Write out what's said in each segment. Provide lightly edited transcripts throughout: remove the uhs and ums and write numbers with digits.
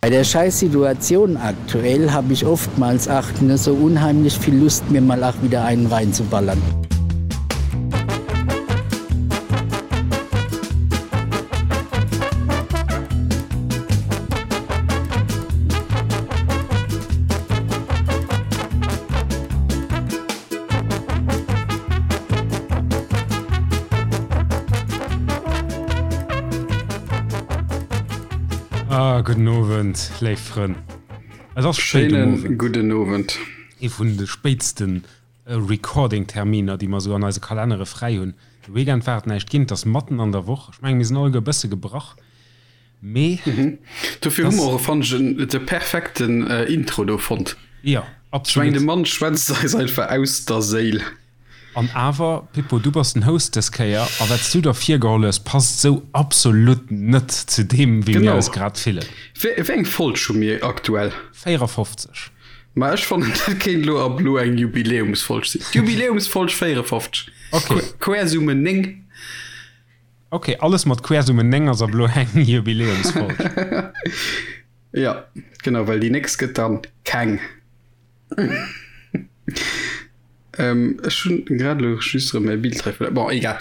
Bei der Scheißsituation aktuell hab ich oftmals ach ne so unheimlich viel Lust mir mal ach wieder einen reinzuballern. Ah, gudden Owend, léif Frënn. Et ass spéit um Schéinen Owend. gudden Owend. Ee vun de spéitste Recording-Terminer, déi mer esou an eise Kalennere fräi hunn. De Weekend war et näischt ginn, et ass matten an der Woch. Ech mengen, mir sinn alleguer e bësse gebrach, mee Dofir hu mer och, fannen ech, de perfekten Intro do fonnt. Jo, Ech mengen, absolut. de Mann schwätzt eis einfach aus der Séil. An awer, Pippo, du bass den Host dës Kéier, a wat s du der virgeholl hues, passt esou absolut net zu deem, wéi mir eis grad fillen. Wéi eng Folg hu mir aktuell? 54. Ma ech fannen, dat kéint elo ab elo eng Jubiläumsfolg sinn. D'Jubiläumsfolg 54. Ok. Quersumme 9. Ok, alles mat Quersumme 9 ass ab elo eng Jubiläumsfolg. Jo, genau, well déi nächst gëtt dann keng. Ähm, ech hunn grad elo just erëm mäi Bild hei verluer. Bon, egal.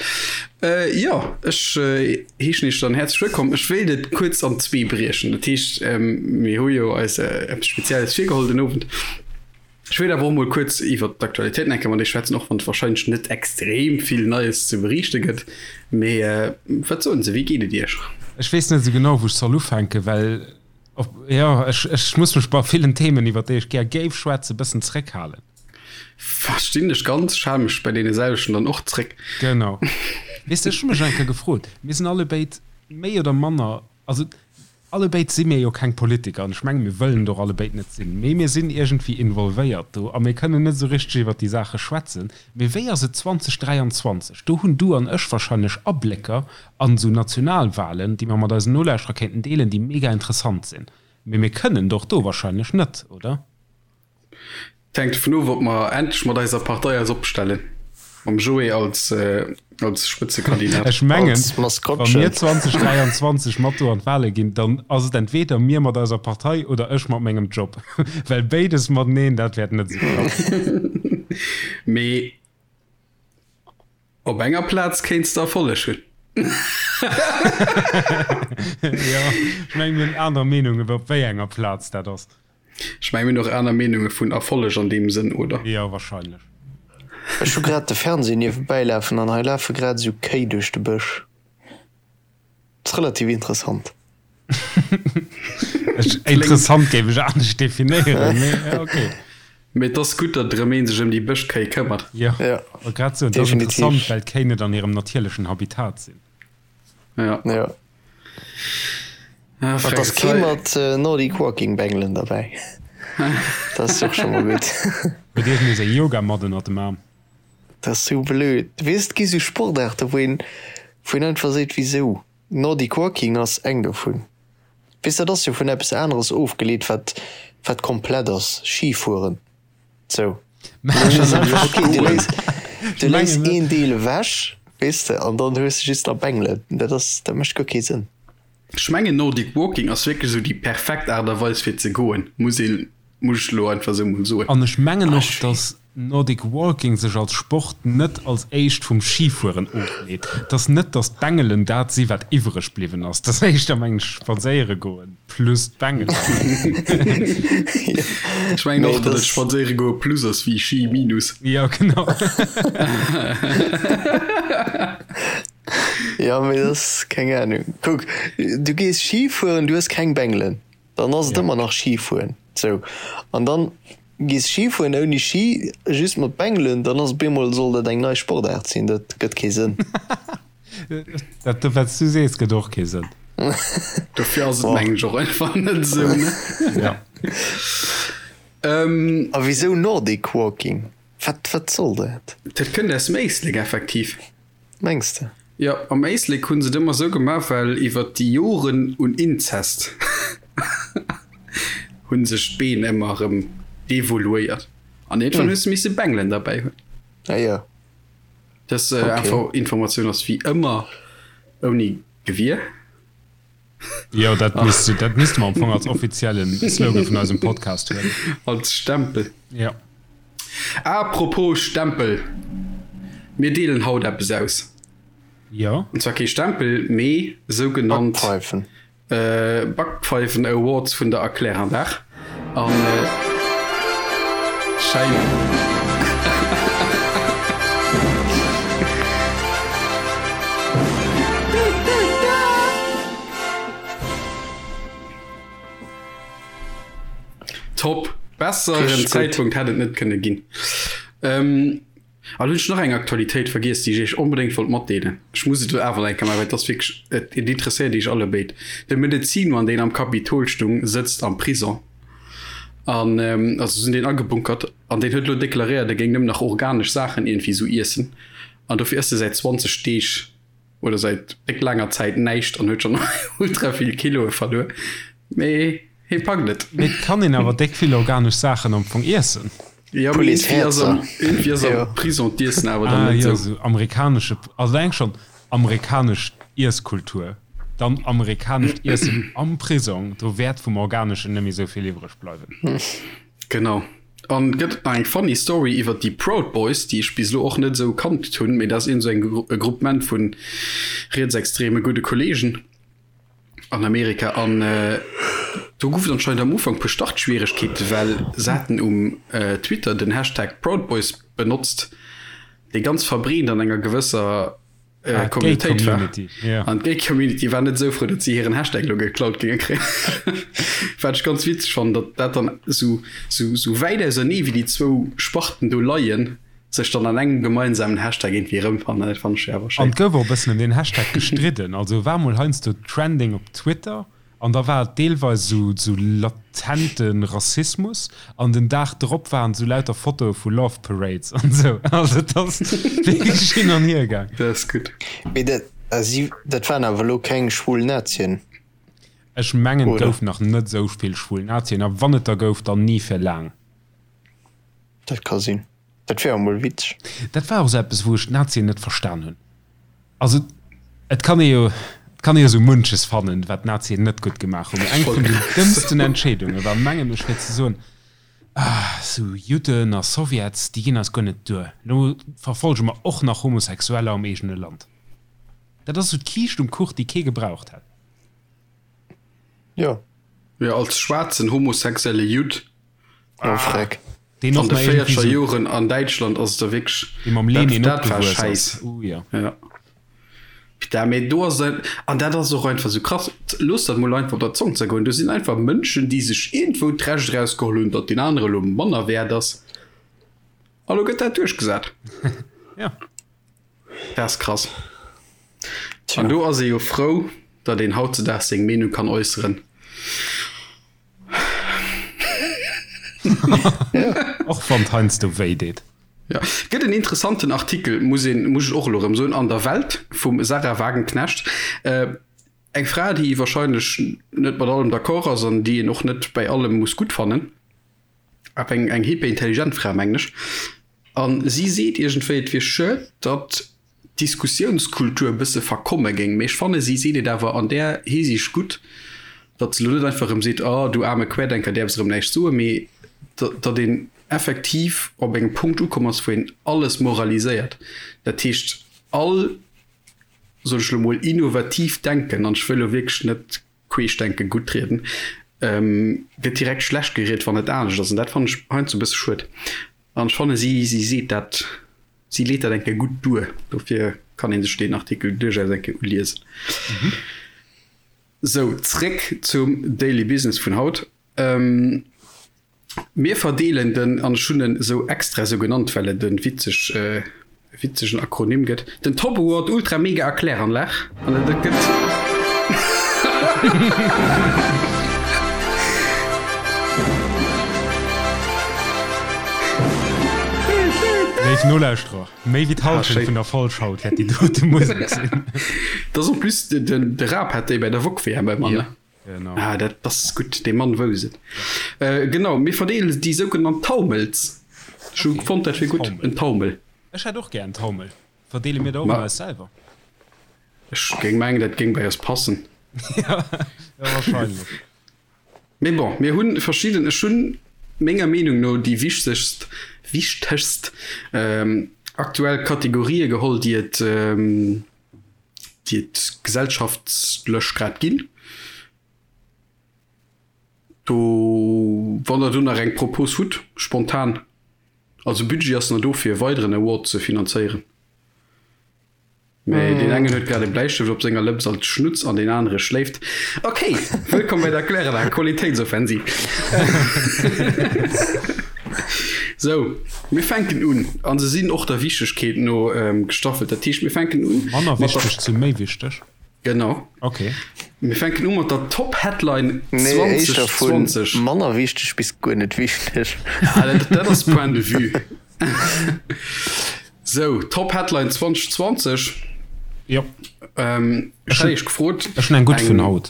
Äh, jo, ech äh, heeschen iech dann häerzlech wëllkomm. Ech wéilt et kuerz an zwee briechen. Dat heescht, ähm, mir hu jo eis äh, eppes Spezielles virgeholl den Owend. Ech wéilt awer och mol kuerz iwwer d'Aktualitéiten eng Kéier mat iech schwätzen, och wann et warscheinlech net extrem vill Neies ze beriichte gëtt. Mee äh, wat soen se, wéi geet et iech? Ech weess net esou genau, wou ech soll ufänken, well Op, jo, ech, ech muss mech bei villen Themen, iwwer déi ech gär géif schwätzen, e bëssen zréckhalen. Verstinn dech ganz, ech hale mech bei deene selwechten dann och zréck. Genau. Weess de, ech hu mech eng Kéier gefrot, mir sinn allebéid méi oder manner, also allebéid si mir jo keng Politiker an ech menge mir wëllen et och allebéid net sinn, mee mir sinn iergendwéi involvéiert do a mir kënnen net esou richteg iwwer déi Saache schwätzen. Mee wéi ass et 2023? Do hunn du an ech wahrscheinlech Ablécker An esou Nationalwahlen, déi mer mat eisen Nolauschterer kéinten deelen, déi mega interessant sinn. Mee mir kënnen et och do wahrscheinlech net, oder? Et hänkt dovun of, ob mer endlech mat eiser Partei eis opstellen, mam Joé als als Spëtzekandidat. Ech mengen, wa mir 2023 mat do an d'Wahle ginn, dann ass et entweder mir mat eiser Partei oder ech mat mengem Job. Well béides mateneen, dat wäert net esou klappen. Mee Op enger Plaz kéints de Erfolleg hunn. Jo, ech mengen mir hunn aner Meenungen op wéi enger Plaz dat ass. Ech mengen mir hunn och aner Meenunge vun Erfolleg an deem Sënn, oder? Jo, wahrscheinlech. Ech hu grad de Fernseh niewebäi lafen an hei lafe grad esou Kéi duerch de Bësch. Ass relativ interessant. Interessant géif ech anescht definéieren, mee ok. Mee et ass gutt, datt erëm een sech ëm déi Bëschkéi këmmert. Jo, wollt grad soen, et ass interessant, well d'Kéi net an hirem natierlechen Habitat sinn. Jo. Jo. An et ass kee mat Nordic Walking Bengelen derbäi. Dat ass och scho mol gutt. Huet iergendee seng Yogamatt ënnert dem Aarm? Dat ass sou blöd. Weess, et gi sou Sportaarte wou een, wou een einfach seet, wisou? Nordic Walking ass eng dovun. Weess, dat ass jo vun eppes aneres ofgeleet, wat, wat komplett ass, Schifueren. Sou. Dat ass einfach okay, du léiss, du léiss een Deel ewech, weess de, an dann hues de just nach Bengelen. Dat ass, dat mécht guer kee Sënn. Ech mengen Nordic Walking ass wierklech esou déi perfekt Aart a Weis fir ze goen, muss een, muss ech elo einfach esou mol soen. An ech mengen och, dass Nordic Walking sech als Sport net als éischt vum Schifueren ofleet. Et ass net, dass d'Bengelen dat si wat iwwreg bliwwen ass. Et ass éischter, mengen ech, spadséiere goen plus d'Bengelen. Ech mengen och, datt et spadséiere goe plus ass wéi Schi minus. Jo, genau. Jo, mee dat ass, keng Ahnung. Kuck, du gees Schi fueren, du hues keng Bengelen. Dann ass et ëmmer nach Schi fueren. Sou. An dann gees Schi fueren ouni Schi, just mat Bengelen, dann ass op eemol, soll dat eng nei Sportaart sinn. Dat gëtt kee Sënn. Dat wat s du sees, gëtt och kee Sënn. Dofir ass et mengen ech och einfach net esou, ne? Ja. A wisou Nordic Walking? Wat, wat soll dat? Dat kënnt aus dem Éislek effektiv. Mengs de? Jo, am Éislek hunn se et ëmmer sou gemaach, well iwwer déi Joren un Inzest hunn sech d'Been ëmmer erëm devoluéiert an iergendwann hues de misse Bengelen derbäi hunn. Ah jo. Dës Informatioun ass wéi ëmmer ouni Gewier. Jo, dat misst, dat misste mer am Fong als offiziellen Slogan vun eisem Podcast huelen. Als Stempel. Ja. Apropos Stempel, mir deelen haut eppes aus. Jo. An zwar kee Stempel, mee sougenannt Backpfeifen. Backpfeifen Awards vun der Erkläranlag. An schein. Top! Besseren Zäitpunkt hätt et net kënne ginn. An hunn ech nach eng Aktualitéit vergiess, déi ech iech onbedéngt wollt matdeelen. Ech muss et elo awer nach eng Kéier maachen, well et ass wierklech, et interesséiert iech allebéid. De Medezinmann, deen am Kapitol stung, sëtzt am Prison an, also se hunn deen agebunkert an deen huet elo deklaréiert, e géing nëmmen nach organesch Saachen iergendwéi esou iessen an dofir ësst e säit 20 Deeg oder säit déck laanger Zäit näischt an huet schonn ultra vill Kiloe verluer. Mee hie packt et. Mee et kann een awer déck vill organesch Saachen am Fong iessen. Ja, mee iergendwéi ass am, iergendwéi ass am Prison d'Iessen awer dann Ah net jo, esou. esou amerikanesche, also eng schonn amerikanesch Iesskultur, dann amerikanescht Iessen am Prisong, do wäert vum Organeschen net méi esou vill iwwreg bleiwen. Genau. An gëtt et nach eng funny Story iwwer déi Proud Boys, déi ech bis elo och net esou kannt hunn, mee dat ass iergend esou eng e Groupement vu rietsextreme gudde Kollegen an Amerika. An do gouf et anscheinend am Ufank puer Startschwieregkeete well se haten um Twitter den Hashtag Proud Boys benotzt, dee ganz verbreent an enger gewësser Ah, Communautéit war. Community, yeah. An d'Gay Community war net esou frou, datt si hiren Hashtag lo geklaut géinge kréien. Wat ech ganz witzeg fannen, datt dat dann esou, esou, esou wäit ausernee wéi déi zwou Sparten do leien, sech dann an engem gemeinsamen Hashtag iergendwéi erëmfannen. Dat fannen ech awer An schéin. et gouf och e bëssen ëm deen Hashtag gestridden. Also war mol heiansdo trending op Twitter An da war et deelweis esou esou latente Rassismus an den Dag drop waren esou lauter Fotoe vu Love Parades an esou. Also et ass wierklech hin an hier gaang. Dat ass gutt. Mee dat, si, dat waren awer elo keng schwul Nazien, Ech mengen et oder? gouf nach net esou vill schwul Nazien a wann et der gouf, dann ni fir laang. Dat ka sinn. Dat wier emol witzeg. Dat war och esou eppes, wou ech d'Nazien net verstan hunn. Also et kann ee jo, et kann ee jo sou munches fannen, wat d'Nazien net gutt gemaach hunn, mee eng vun den dëmmsten Entscheedunge war, mengen ech, fir ze soen, Ah, sou Judden a Sowjets, déi ginn eis guer net duer, elo verfolge mer och nach Homosexueller am eegene Land. Dat ass sou d'Kiischt um Kuch, déi kee gebraucht hätt. Jo. Jo, als schwaarzen homosexuelle Judd Oh Freck. Deen An och de nach irgendwie 40er so, Joren an Däitschland ass et da wierklech, dee mam dat, Lenin dat war opgewuess ass. Schäiss. Uh, ja. Ja. Putain, mee do ass et, an dat ass och einfach sou krass, looss dat mol einfach op der Zong zergoen, do sinn einfach Mënschen, déi sech iergendwou d'Recht erausgeholl hunn, datt deen anere lo manner wäert ass, a lo gëtt dat duerchgesat. Ja. Dat ass krass. An do ass ee jo frou, datt een hautzedaags seng Meenung kann äusseren. Och wann et heiansdo wéi deet. Ja. Gëtt en interessanten Artikel, muss een, muss ech och elo erëm soen, an der Welt vum Sarah Wagenknecht. Äh, eng Fra, déi wahrscheinlech net mat allem d'accord ass an déi een och net bäi allem muss gutt fannen. Awer eng, eng hyperintelligent Fra, mengen ech. An si seet iergendwéi, et wier schued, datt d'Diskussiounskultur e bësse verkomme géing. Mee ech fanne si seet et awer an där Hisiicht gutt, datt se elo net einfach erëm seet, oh du aarme Querdenker, däerfs erëm näischt soen, mee datt een effektiv op engem Punkt ukomm ass, wou een alles moraliséiert. Dat heescht, all, soen ech elo mol, innovatiivt Denken, an ech wëll elo wierklech net Queeschdenke guttrieden, gëtt direkt schlecht geriet, wann et anescht ass. An dat fannen ech heiansdo e bësse schued. An ech fanne si, si seet dat, si leet dat eng Kéier gutt duer. Dofir kann ee sech deen Artikel duerchaus eng Kéier uliesen. Sou, zréck zum Daily Business vun haut. Mir verdeelen den, an ech hunn en esou extra esou genannt, well et e witzeg, witzegen Akronym gëtt, den Top Award Ultra Mega Erkläranlag. An et gëtt. Léif Nolauschterer, méi wéi d'Hallschent vun der Folg haut wäert déi dote Musek sinn. Dat ass en plus, den, de Raab hat déi bei der Wok-WM ëmmer, ne? Genau. Ah, dat ass gutt, dee Mann wousst et. Äh, genau, mir verdeelen déi sougenannt Taumels. Ech hu fonnt, dat wier gutt, en Taumel. Ech hätt och gär en Taumel. Verdeele mir der och Ma ëmmer eis selwer? ech géing mengen, dat géing bei eis passen. Ja, wahrscheinlech. Mee bon, mir hunn verschidden, ech hunn menger Meenung no déi wichtegst, wichtegst aktuell Kategorië geholl, déi et, déi et gesellschaftlech grad ginn. Do, wann der do nach eng Propos hutt, spontan, also Budget ass nach do fir e weideren Award ze finanzéieren. Mee deen engen huet grad e Bläistëft op senger Lëps als Schnutz an deen anere schléift. Ok, wëllkomm bei der Kläranlag Qualitéitsoffensiv. Sou, mir fänken un an se sinn och der Wichtegkeet no gestaffelt. Dat heescht, mir fänken un Manner mat der. Wichteg zu méi wichteg. Genau. Ok. Mir fänken u mat der Top-Headline Nee, éischter vun 2020. manner wichteg bis guer net wichteg. Ah, dat, dat ass Point de vue. Sou, Top Headline 2020. Jo. Ähm, ech hat iech gefrot. Ech hunn eng gutt vun haut.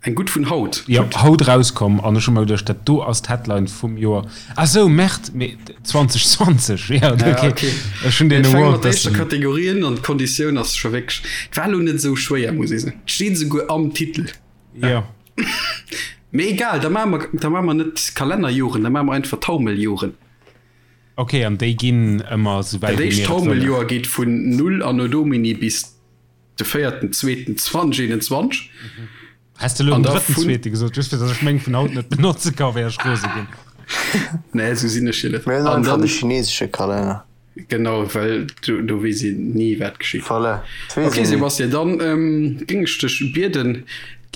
Eng gutt vun haut? Jo, haut rauskomm an ech hu mer geduecht, dat do ass d'Headline vum Joer. Ah sou, Merde, mee 2020, jo, okay. Ech hunn deen Award. Mir fänke mat der éischter Kategorie un an d'Konditioun ass scho wierklech, et war elo net esou schwéier, muss ee soen. Et steet esouguer am Titel. Jo. Mee egal, da maache mer, da maache mer net Kalennerjoren, da maache mer einfach Taumeljoren. Ok, an déi ginn ëmmer esou wäit wéi mir et wëllen. Dat éischt Taumeljoer geet vun 0 Anno Domini bis de véierten zweeten 2021. Häss de elo den drëtten zweete gesot, just fir datt ech meng vun haut net benotze ka, wär ech rose ginn. Nee, esou sinn ech jo net. Mir hunn einfach de chinesesche Kalenner. Genau, well do, do weess een ni wat geschitt. Voilà, dat weess een Ok ni. Sébastien, dann géing ech dech bieden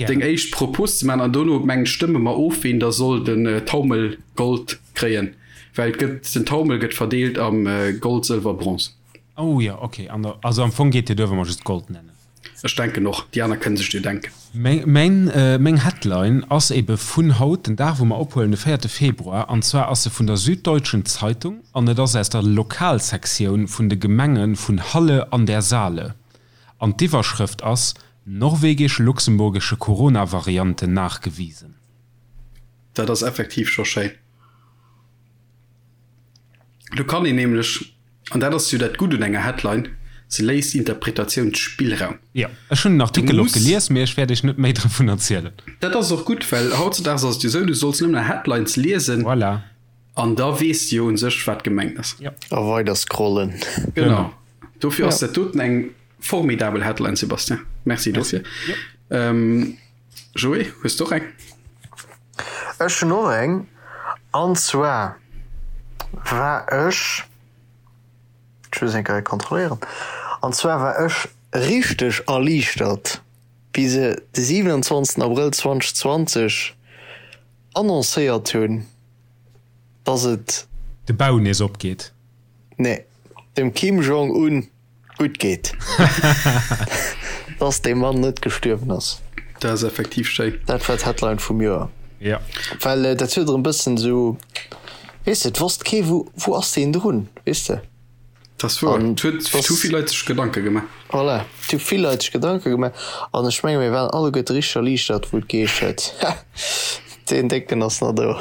deng éischt Propos ze maachen an dono mengen stëmme mer of ween da soll den Taumel Gold kréien, well et gëtt, den Taumel gëtt verdeelt am Gold, Sëlwer, Bronze. Oh jo, ok, an der, also am Fong geet dir duer wa mer just Gold nennen. Ech denken och, déi aner kënne sech jo denken. Meng, meng Headline ass ebe vun haut, den Dag wou mer ophuelen, de véierte Februar, an zwar ass se vun der Süddeutschen Zeitung an et ass aus der Lokalsektioun vun de Gemenge vun Halle an der Saale an d'Iwwerschrëft ass Norwegisch-luxemburgische Corona-Variante nachgewiesen. Dat ass effektiv scho schéin. Do kann een nämlech, an dat ass jo dat Gutt un enger Headline, se léisst Interpretatiounsspillraum. Jo, ech hunn den Artikel och gelies, mee ech wäert iech net méi dovun erzielen. Dat ass och gutt, well hautzedaags ass et jo esou, du solls nëmmen Headlines liesen. Voilà. An da weess de jo un sech, wat gemengt ass. Jo. A weider scrollen. Genau. Dofir ass dat doten eng formidabel Headline, Sébastien. Merci dofir. Jo. Joé, hues de och eng? Ech hunn och eng, an zwar war ech, ech muss eng Kéier kontrolléieren, an zwar war ech richteg erliichtert, wéi se de 27 Abrëll 2020 annoncéiert hunn, dass et. De Bau nees opgeet. Nee, dem Kim Jong-un gutt geet. Dass dee Mann net gestuerwen ass. Dat ass effektiv schéin. Dat war d'Headline vum Joer. Ja. Well dat huet erëm bëssen esou, weess de, et wosst kee wou, wou ass deen drun, weess de. Dat ass wouer. Et huet, et hu vill Leit sech Gedanke gemaach. Voilà, et hu vill Leit sech Gedanke gemaach an ech menge mir waren alleguerte richteg erliichtert, wou et geheescht huet, Ha, deen Décken ass nach do.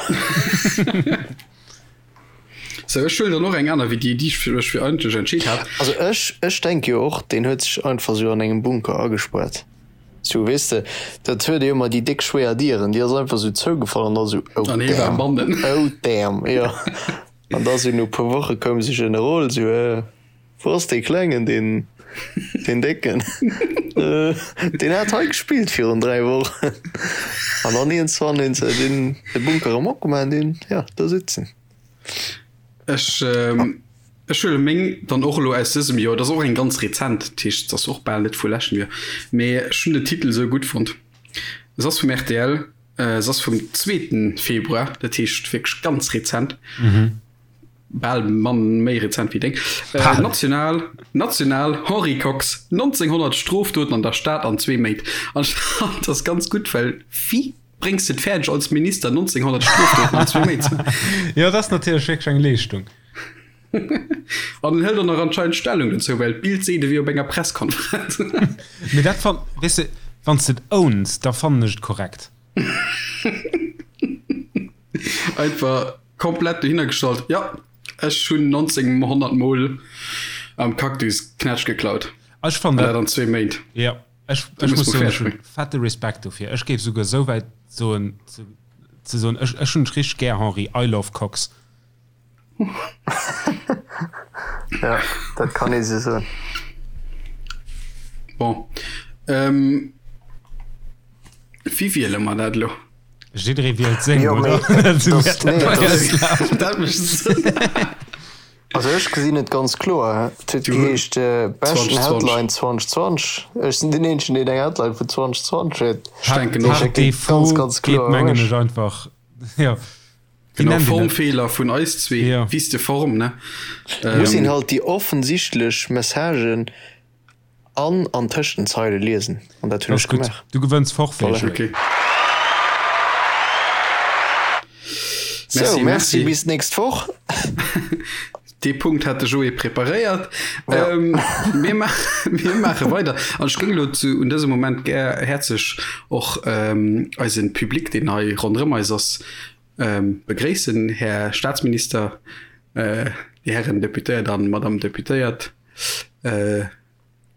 Sou, ech huelen dann och eng aner wéi déi, déi ech mech fir eigentlech entscheet hat. Also ech, ech denke jo och, deen huet sech einfach sou an engem Bunker agespuert. Sou, weess de, dat huet jo ëmmer déi déck schwéier Dieren, déi ass einfach sou zougefall an da sou, oh An hie war damn, bannen. oh damn, jo. An da sou no puer Woche koum sou Generol, sou, äh, wou ass dee Klengen, deen, deen Décken? Äh, deen hat hei gespillt virun 3 Wochen. An dann iergendzwann hunn se deen, de Bunker erëm opgemaach an deen, jo, do sëtzt en. Ech ech huele meng dann och elo aus dësem Joer. Dat ass och eng ganz rezent, dat heescht, se ass och bal net vu leschtem Joer, mee ech hunn den Titel esou gutt fonnt. Se ass vum rtl, se ass vum zweeten Februar, dat heescht wierklech ganz rezent, bal mann méi rezent wéi deng. National, national, Henri Kox, 1900 Strofdoten an der Stad an zwee Méint. An ech fand dat ganz gutt, well wéi Bréngs de et fäerdeg als Minister 1900 Strofdoten an zwou Méint ze maachen? Jo, dat ass natierlech wierklech eng Leeschtung. An en hëlt och nach anscheinend Stellung dozou, well d'Bild seet e wier op enger Presskonferenz. Mee dat fann, weess de, wann s de et owns, da fannen ech et korrekt. Einfach komplett dohinner gestallt, jo, ech hunn 1900 mol am Cactus Knätsch geklaut. Ech fannen dat. An dat an zwee Méint. Jo. Ech, ech muss soen, ech hunn fette Respekt dofir. Ech géif souguer esou wäit soen, ze, ze soen, ech, ech hunn dech richteg gär, Henri, I love Cox. Ja, dat kann ee sou soen. Bon. Ähm, wéi wiele mer dat elo? Jidderee wielt seng, Jo, mee oder? Dat sinn das, nee, das, Dat mécht Sënn. Also ech gesinn et ganz kloer. Et huet geheescht beschten 2020. Headline 2020. Ech sinn den eenzegen deen eng Headline vun 2020 huet. Ech denken och. Par défaut ganz geet kloer mengen ech einfach jo. Wéi Genau, nennt een dat? Formfeeler vun eis zwee. Jo. Wiste Form, ne? Muss een halt déi offensichtlech Messagen An an tëscht den Zeile liesen, an dat hunn ech gemaach. Du gewënns Forfait, Voilà. Okay. Sou, Merci, merci, merci. bis d'nächst Woch. Dee Punkt hat de Joé preparéiert. Ja. Ähm, mir, ma mir maache weider. An ech géing elo zu un dësem Moment gär häerzlech och ähm, eisen Public, deen hei ronderëm eis ass, ähm, begréissen. Här Staatsminister, äh, Dir Hären Deputéiert an Madame Deputéiert. Äh,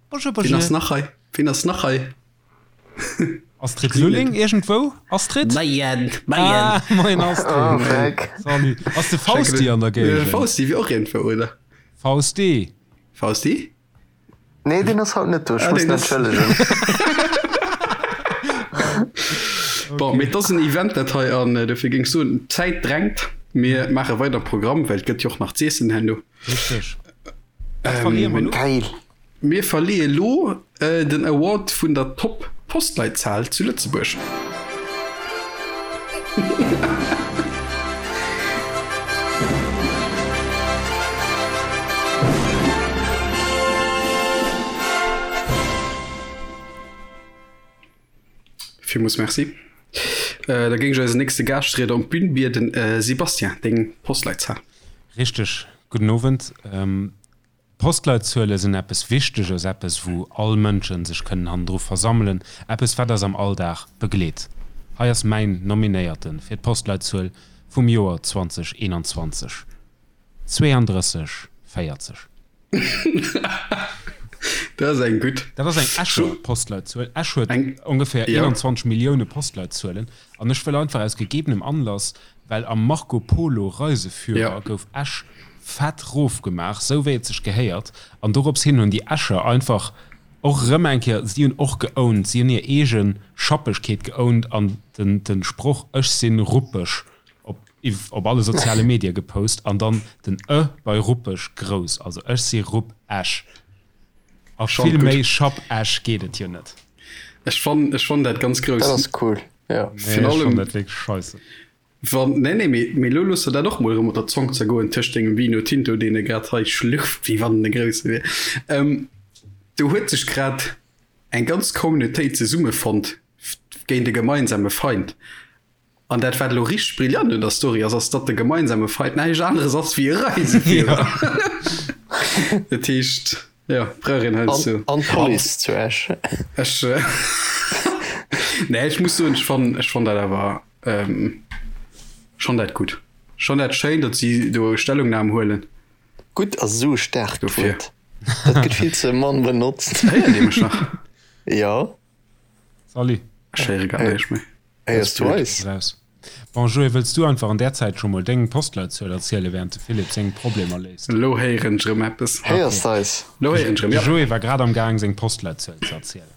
Bonjour, bonjour. Wien ass nach hei? Wien ass nach hei? Astrid Lulling irgendwou? Astrid? Moien, moien. Ah, moien Astrid. Oh, Freck. Salut. Ass de Fausti an der Géigend? Fausti wier och iergendwou, oder? Fausti? Fausti? Nee, deen ass haut net do. Ech muss en entschëllegen. Bon, mee et ass en Event dat hei an dofir géing ech soen, d'Zäit drängt. Mir maache weider Programm, well et gëtt jo och nach z'iessen herno. Richteg. Geil. Mir verleeë lo den Award vun der Top Postleitzahl zu Lëtzebuerg. Villmools Merci. Da géing ech eisen nächste Gaaschtrieder op d'Bün bieden. Sébastien, deng Postleitzahl. Richteg, gudden Owend. Postleitzuele sinn eppes Wichteges, eppes wou all Mënschen sech kënnen hannendru versammelen, eppes wat eis am Alldag begleet. Hei ass mäin Nominéierte fir d'Postleitzuel vum Joer 2021, 32 40. Dat ass eng gutt. Dat ass eng Escher Postleitzuel. Esch huet ongeféier 21 Millioune Postleitzuelen. An ech wëll einfach aus gegebenem Anlass, well am Marco Polo Reiseführer gouf Esch fett rofgemaach, sou wéi et sech gehéiert. An dorops hin hunn déi Escher einfach och erëm eng Kéier, si hunn och geowned, si hunn hir eege Schappegkeet geowned an den Sproch Ech sinn ruppeg op op alle soziale Medie gepost an dann den ë bei ruppeg grouss, also ech si rupp Esch. A vill méi Schapp Esch geet et jo net. Ech fann ech fann dat ganz grouss. Dat ass cool, jo. Nee, ech fann dat wierklech scheisse. Wann, nee, nee, mee, mee lo looss der dat och mol erëm op der Zong zergoen tëscht dengem Vino Tinto, deen e grad hei schlürft, wéi wann en e grousse wier. Ähm, do huet sech grad eng ganz Communautéit zesummefonnt géint e gemeinsame Feind. An dat wat elo richteg brillant un der Story ass, ass datt de gemeinsame Feind näischt aneres ass wéi e Reiseführer. Dat heescht, jo, brauch een heiansdo. An d'Police zu Esch. Ech, nee, ech muss soen, ech fannen, ech fann dat awer schonn dat gutt. Schonn dat schéin, datt si do Stellungnam huelen. Gutt ass esou e staarkt Wuert. Dat gëtt vill ze mann benotzt. Héiert Dir mech nach? Jo. Salut. Ech héiere gar näischt méi. Héiers du eis? Bon, Joé, wëlls du einfach an där Zäit scho mol deng Postleitzuel erzielen, während de Philippe seng Problemer léist? Elo héieren ech erëm eppes. Héiers de eis? Elo héieren ech erëm, jo. De Joé war grad am Gaang, seng Postleitzuel ze erzielen.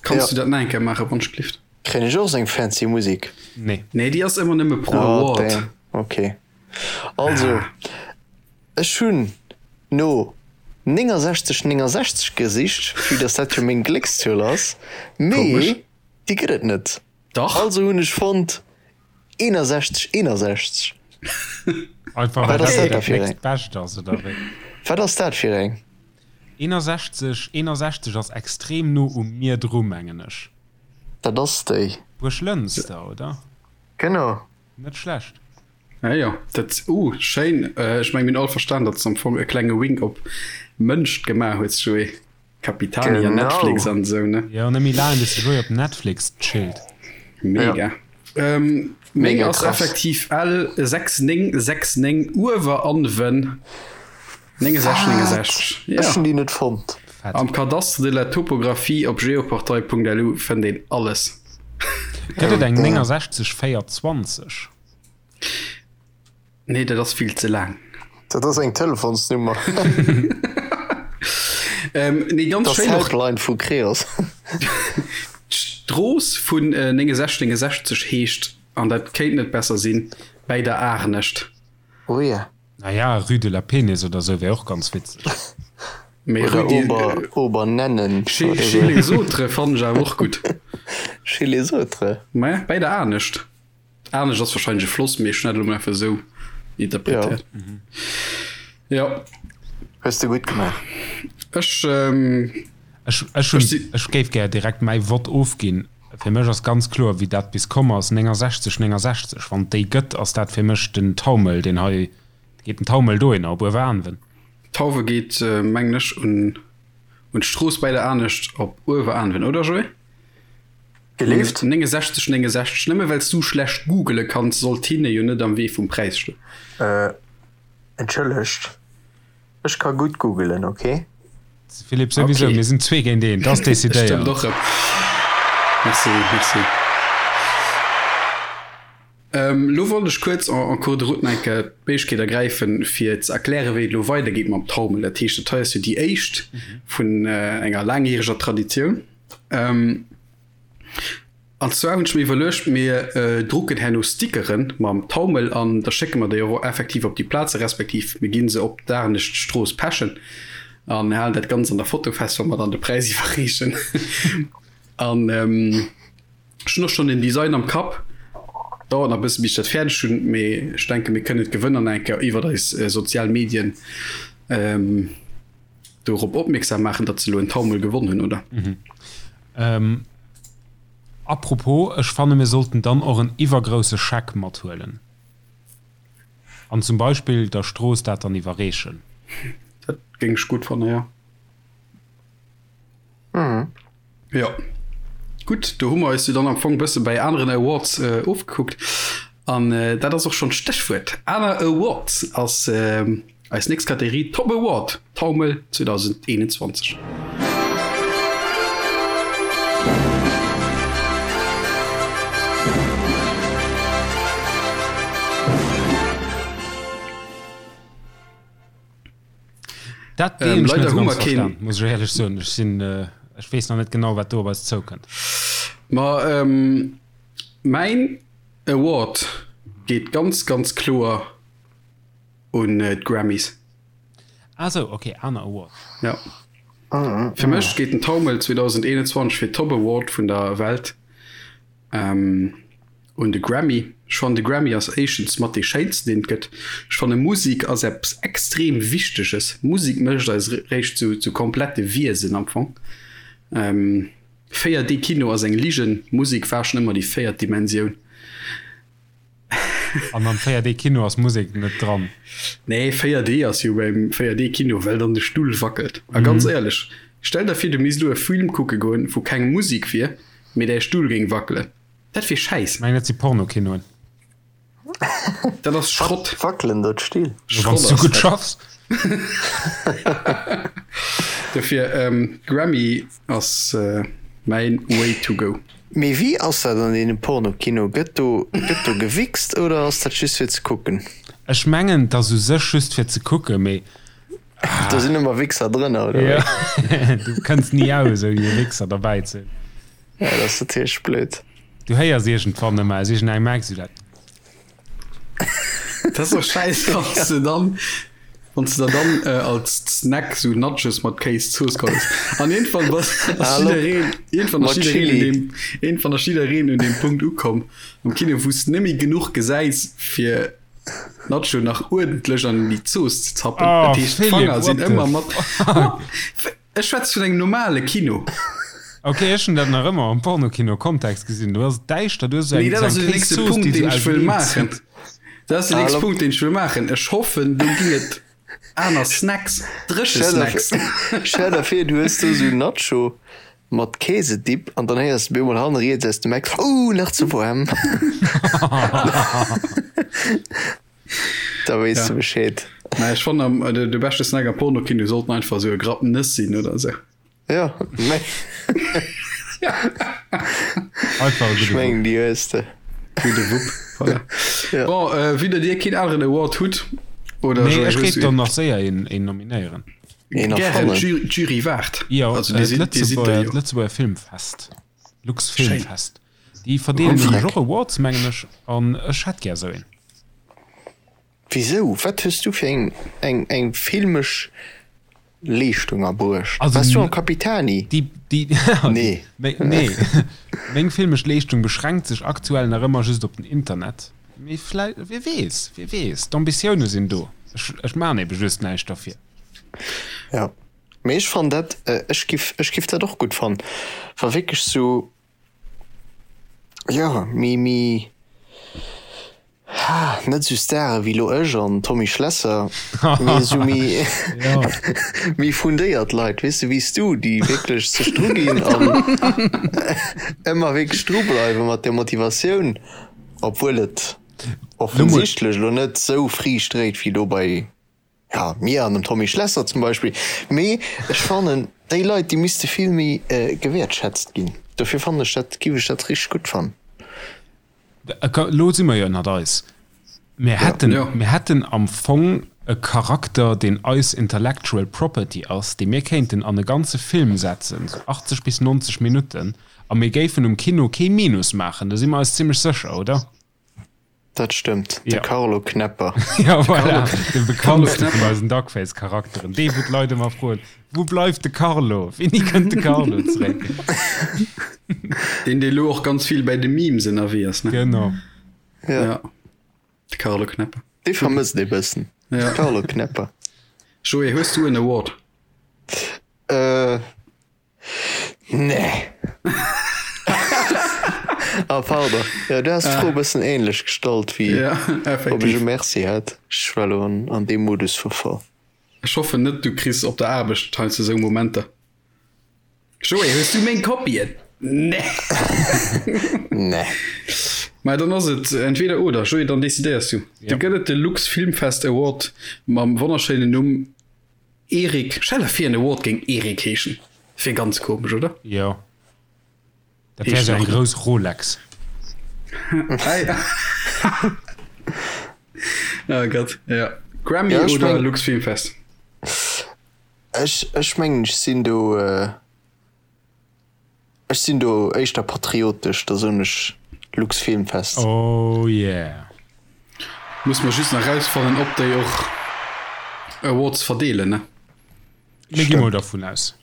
Kanns du dat nach eng Kéier maachen, wann ech glift? Kréien ech och seng fancy Musik? Nee. Nee, déi ass ëmmer nëmme pro Award. Oh, damn. Ok. Also, ech hunn no 69 69 gesicht, vue dass dat jo meng Gléckszuel ass, mee déi gëtt et net. Dach. Also hunn ech fonnt 61 61. Einfach well Wat ass dat dat da dat fir eng? nächst Bescht ass, oder wéi? Wat ass dat fir eng? 61 61 ass extrem no u mir dru, mengen ech. Dat ass déi. Buerglënster, oder? Genau. Net schlecht. Ah jo, dat, uh, schéin. Ech meng mir hunn all verstan, datt s de am Fong e klenge Wink op Mënscht gemaach hues, Joé. Capitani an Netflix an esou, ne? Jo, net méi laang bis de Joé op Netflix chillt. Mega. Ähm, meng ass effektiv L 6969 Ueweranwen 69 69. Ech hunn déi net fonnt. Fett. Am Cadastre de la topographie op geoportail.lu fënnt een alles. Gëtt et eng 69 420? Nee, dat ass vill ze laang. Dat ass eng Telefonsnummer. Ähm, nee, ganz Dat ass schéin och d'Helpline vu Creos. d'Strooss vun 69 69 heescht, an dat kéint net besser sinn, Bäi der Aarnescht. Oh ja. Naja, Rue de la Penis oder sou wär och ganz witzeg. Mee Oder Rue de, Ober, Obernennen Chez, oder chez sou. les autres fannen ech awer och gutt. Chez les autres. Mä bäi der Aarnescht. Aarnescht ass wahrscheinlech e Floss, mee ech hunn dat elo mol einfach esou interpretéiert. Jo. Hues de gutt gemaach. Ech, ähm, Ech, ech hunn, ech géif gär direkt mäi Vott ofginn. Fir mech ass ganz kloer, wéi dat bis komm ass, 69, 69. Wann et déi gëtt, ass dat fir mech den Taumel, deen hei, geet den Taumel dohinner, op Ueweraanwen. D'Tauwe geet, mengen ech, un un d'Strooss bäi der Aarnescht op Ueweraanwen, oder Joé? Gelift? 69, 69, nëmme well s du schlecht googele kanns, sollt hinne jo net am Wee vum Präis stoen. Entschëllegt. Ech ka gutt googelen, ok? Philippe, souwisou, Okay. mir sinn zwee géint een, dat ass Stëmmt decidéiert. och rëm. Merci, merci. Ähm, lo wollt ech kuerz en, en cours de route nach eng Kéier d'Méiglechkeet ergräifen, fir ze erklären, wéi et elo weidergeet mam Taumel. Dat heescht, dat hei ass jo déi éischt vun äh, enger laangjäreger Traditioun. Ähm, An zwar hunn ech mir iwwerluecht, mir drucken herno Stickeren mam Taumel an da schécke mer déi och effektiv op déi Plaze respektiv mir ginn se op d'Aarnescht Strooss pechen an halen dat Ganzt an der Foto fest, wa mer dann de Präis iwwerreechen. An ech hunn och schonn den Design am Kapp. Dauert nach e bësse bis ech dat fäerdeg hunn, mee ech denke mir kënnen d'Gewënner nach eng Kéier iwwert eis sozial Medien dorop opmierksam maachen, datt se elo en Taumel gewonn hunn, oder? Apropos, ech fanne mir sollten dann och en iwwergrousse Scheck mathuelen an zum Beispill der Strooss dat dann iwwerreechen. Dat géing ech gutt fanne, jo. Jo, gutt, do hu mer eis jo dann am Fong e bësse bäi aneren Awards ofgekuckt. An dat ass och schonn d'Stéchwuert. Aner Awards ass Eis nächst Kategorie, Top Award Taumel 2021. Dat ähm, leider hu mer keen muss ech éierlech soen. Ech sinn äh, ech weess nach net genau wat do op eis zoukënnt. Ma ähm, mäin Award geet ganz ganz kloer un d'Grammys. Ah sou, ok, aner Award. Ja. Fir mech geet den Taumel 2021 fir Top Award vun der Welt ähm, un de Grammy. Ech fannen de Grammy ass éischtens mat dee schéinsten deen et gëtt. Ech fanne Musik ass eppes extrem Wichteges. Musik mécht eis réischt zu, zu komplette Wiesen am Fong. Ähm, 4D Kino ass eng Ligen, Musik war schon ëmmer déi véiert Dimensioun. An am 4D Kino ass Musek net dran. Nee, 4D ass jo beim 4D Kino, well dann de Stull wackelt. A ganz éierlech, stell der vir du misst elo e Film kucke goen, wou keng Musek wier, mee däi Stull géing wackelen. Dat wier Schäiss. Ech mengen dat si Pornokinoen. Dat ass Schrott. Wackelen do d'Still? Wann s du gutt schaffs. Dofir, Grammy ass mäin Way to go. Mee wéi ass dat an deene Pornokino? Gëtt do gëtt do gewichst oder ass dat just fir ze kucken? Ech mengen et ass u sech just fir ze kucken, mee Do sinn ëmmer Wichser drënner oder wéi? Du kënns ni aus ouni e Wichser derbäi ze hunn. Ja dat ass natierlech blöd. Du héiers iergendwann ëmmer aus iergendengem Eck esou dat. Dat ass och schäiss wann s de dann wann s de der dann als Snack sou Nachos mat Kéiszooss geholl hues. An iergendwann bass ass jiddereen iergendwann ass jiddereen un deem iergendwann ass jiddereen un deem Punkt ukomm am Kino wou s de net méi genuch gesäis fir Nacho nach uerdentlech an déi Zooss ze zappen. Oh Dat heescht Philippe, d'Fanger sinn what the ëmmer mat fuck? Ech schwätze vun engem normale Kino. Ok, ech hunn dat nach ëmmer am Pornokino-Kontext gesinn. Do ass et däischter, du hues esou Nee, eng dat ass esou jo eng den nächste Kéiszooss, Punkt, déi deen esou ech wëll auserneen maachen. zitt. Dat ass den nächste Hallo. Punkt, deen ech wëll maachen. Ech hoffen, do ginn et aner Snacks, dréche Stell der Snacks. stell der vir, du hues do esou Nacho mat Käsedip an dann héiers de bemol hanne riets aus dem Eck, Ouh, nach ze waarm. Da weess de Ja. Bescheed. Mä ech fannen, am, de, de beschte Snack am Pornokino sollten einfach esou e Grapp Nëss sinn oder esou. Jo, mä Einfach e ech gudde Wupp. mengen déi hues de. Gudde Wupp, voilà. Ja. Bon, vue datt Dir keen aneren Award hutt, oder Nee, Joé, ech hues géif du dann een? nach séier een, een nominéieren. Een Gären, erfannen. d'Jury, d'Jury waart. Jo, Also Dir äh, sidd, Dir sidd der d'Lëtzebuerger, jo. d'Lëtzebuerger Filmfest, Lux Schéin. Filmfest. Déi verdeelen Wéi? nämlech och Awards, mengen ech, an ech hätt gär esou een. Wisou? Wat hues du fir eng, eng, eng filmesch Leeschtung erbruecht? Also Waars du am Capitani? Déi, déi, Nee. Nee. Meng filmesch Leeschtung beschränkt sech aktuell nach ëmmer just op den Internet. Mee vläi, wie weess, wie weess, d'Ambitioune sinn do. Ech, ech maachen ebe just näischt derfir. Ja. Mee ech fannen dat, ech giff, ech giff dat och gutt fannen, wa wierklech sou, jo, méi, méi, Ha, net sou Stare wéi lo ech an Tommy Schlesser, mee esou méi méi fundéiert Leit, weess de, wéi s du, déi wierklech sech dru ginn an ëmmer wierklech dru bleiwe mat der Motivatioun, obwuel et offensichtlech elo net sou Friicht dréit wéi lo bei Ja, mir an dem Tommy Schlesser zum Beispill. Mee ech fannen, déi Leit, déi misste vill méi gewäertschätzt ginn. Dofir fannen ech dat, giff ech dat richteg gutt fannen. Elo si mer jo ënnert eis. Mir hätten, mir hätten am Fong e Charakter, deen eis Intellectual Property ass, dee mir kéinten an e ganze Film setzen, sou 80 bis 90 Minutten, a mir géifen um Kino kee Minus maachen. Do si mer eis zimmlech sécher, oder? Dat stëmmt, de Ja. Carlo Knepper. Ja, voilà, de bekanntste Carlo vun eisen Duckface-Charakteren. Dee, wou d'Leit ëmmer froen, Wou bleift de Carlo? Wéini kënnt de Carlo zeréck? Deen, dee lo och ganz vill bäi de Memes ënnerwee ass, ne? Genau. Ja. Ja. De Carlo Knepper. Dee vermësst ee bëssen. Ja. De Carlo Knepper. Joé, hues du en Award? Äh, Nee. Ah, pardon. Ja, du has d'Fro e bëssen ähnlech gestallt wéi Ja, ob ech e effektiv. Merci hätt. Ech war elo an, an deem Modus verfall. Ech hoffen net, du kriss op der Aarbecht heiansdo esou Momenter. Joé, hues du meng Kopien? Nee. Nee. Mä dann ass et entweder oder. Joé, dann decidéiers du. Ja. Du gëtt et de Lux Filmfest Award mam wonnerschéinen Numm Erik, stell der vir en Award géing Erik heeschen, wier ganz komesch, oder? Jo, dat wär sou eng grouss Rolex. Oh Gott, ja. Grammy Ja, ech oder meng- Lux Filmfest? Ech, ech mengen, ech sinn do, Ech sinn do éischter patriotesch, da soen ech Luxfilmfest. Oh yeah. Muss mer just nach rausfannen ob déi och Awards verdeelen ne? Mir gi mol dervun aus.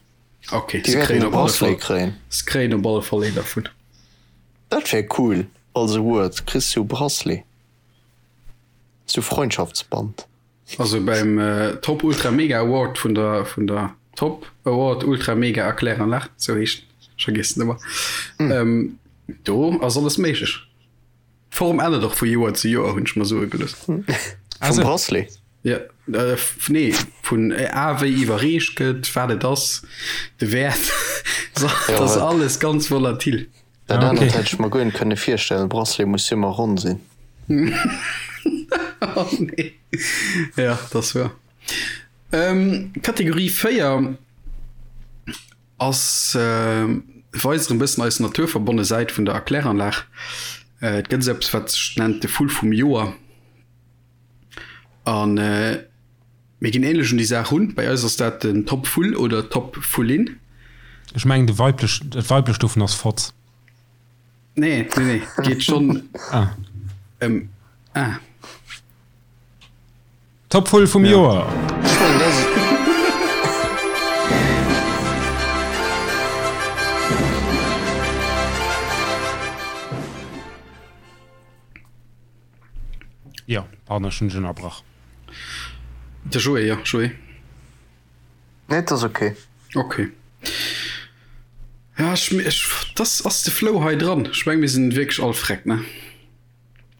Ok, Déi se wäerten kréien e op alle Bracelet Fall, kréien. se kréien op alle Fall een dervun. Dat wär cool als Award, kriss du e Bracelet, sou Freundschaftsband. Also beim Top Ultra Mega Award vun der vun der Top Award Ultra Mega Erkläranlag, sou heescht en, ech vergiessen ëmmer, mm. do ass alles méiglech. D'Form ännert och vu Joer zu Joer, hunn ech mer soe gelooss. Vum Bracelet? Ja, äh, nee, vun A wéi iwwerreecht gëtt, wat et ass, de Wäert, dat ass alles ganz volatil. Dat anert hätt ech mer guer net kënne virstellen, Bracelet muss jo ëmmer ronn sinn. Oh nee. Ja, dat ass wuer. Kategorie 4 ass weist erëm bëssen eis naturverbonne Säit vun der Erkläranlag. Et gëtt esou eppes, wat sech nennt de Vull vum Joer. An Mir ginn ähnlech un déi Saach run. Bei eis ass dat den Top Vull oder Top Vullin. Ech mengen de weiblech, dat weiblecht dovun ass Fotz. Nee, nee, nee, geet schonn Ah. ëm ah. Top Vull vum Ja. Joer! Ech mengen dat ass. Jo, pardon, ech hunn dech ënnerbrach. De Joé, jo, Joé. Nee, et ass ok. Ok. Ja, ech, ech, das ass de Flow hei dran. Ech meng, mir sinn wierklech all freck, ne?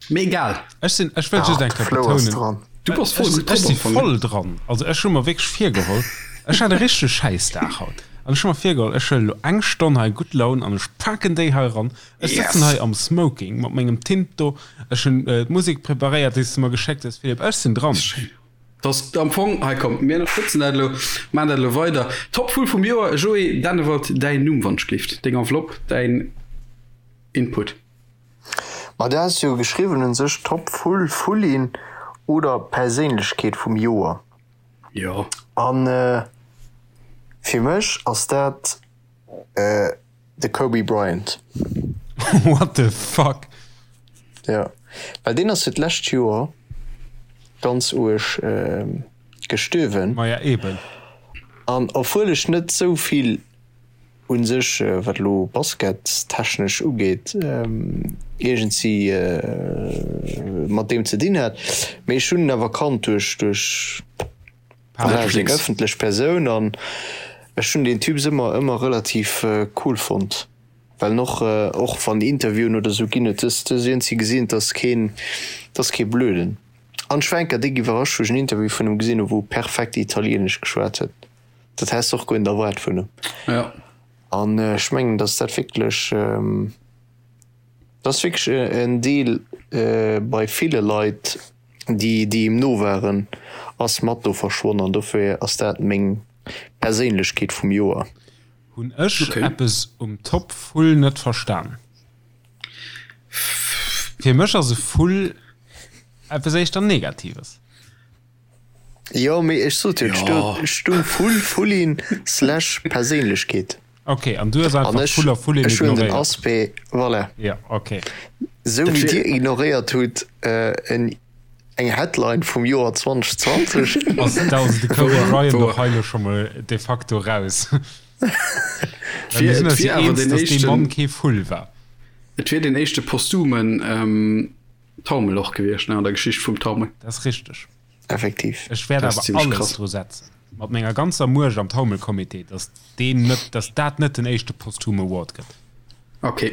Mee egal. Ech sinn, ech wëll just Ah, eng de Kéier Flow ass betounen, dran. Du bass voll ech, gutt ech drop si am Fong, ne? voll dran. Also ech hu mer wierklech virgeholl, ech hat e richtege Schäissdag haut, an ech hu mer virgeholl, ech huelen elo eng Stonn hei gutt Laun an ech paken déi hei eran. Ech sëtzen Yes! hei am Smoking mat mengem Tint do, ech hunn d'Musek preparéiert, déi s de mer geschéckt hues, Philippe. Ech sinn dran. Schéin. Dass am Fong, hei komm, mir ënnerstëtzen dat elo, maachen dat elo weider. Top-Vull vum Joer, Joé Dennewald, däin Numm wann ech gleeft, deng Enveloppe, däin Input. Ma du has jo geschriwwen un sech Top-Vull, Vullin oder Perséinlechkeet vum Joer. Jo. An fir mech ass dat de Kobe Bryant. What the fuck? Jo, well deen ass jo d'lescht Joer ganz uerg gestuerwen. Maja eben. An obwuel ech net sou vill un sech, wat elo baskettechnesch ugeet, iergendsi mat deem ze dinn hat, mee ech hunn en awer kannt duerch duerch seng ëffentlech Persoun an ech hunn deen Typ ëmmer ëmmer relativ cool fonnt. Well en och, och wann Interviewen oder sou ginn huet, du hues iergendwéi gesinn, et ass keen, et ass kee Blöden. An ech war eng Kéier déck iwwerrascht, wou ech en Interview vun em gesinn hu wou e perfekt Italienesch geschwat huet. Dat häss de och guer net erwaart vun em. Ja. An ech mengen, datt dat wierklech, dat ass wierklech en Deel bei ville Leit, déi, déi em no waren, ass mat do verschwonn. An dofir ass dat meng Perséinlechkeet vum Joer. Hun ech okay. eppes um Top Vull net verstan? Fir mech ass e Vull eppes éischter Negatives. Jo, mee ech sot jo, et stung Vull, Vullin slash Perséinlechkeet. Ok, an du hues einfach Vull a Vullin ignoréiert. Ech hunn den Aspect, voilà. Ja, ok. Sou wéi dir ignoréiert hutt en Eng Headline vum Joer 2020. Ass de Kobe Bryant och hei lo scho mol de facto raus? Et wier awer den éischten, Mann kee Vull war. Et wier den éischte posthumen Taumel och gewiescht, ne, an der Geschicht vum Taumel. Dat ass richteg. Effektiv. Ech wäert awer alles dru setzen, mat menger ganzer Muecht am Taumelcomité, datt deen net, datt dat net den éischte posthume Award gëtt. Ok.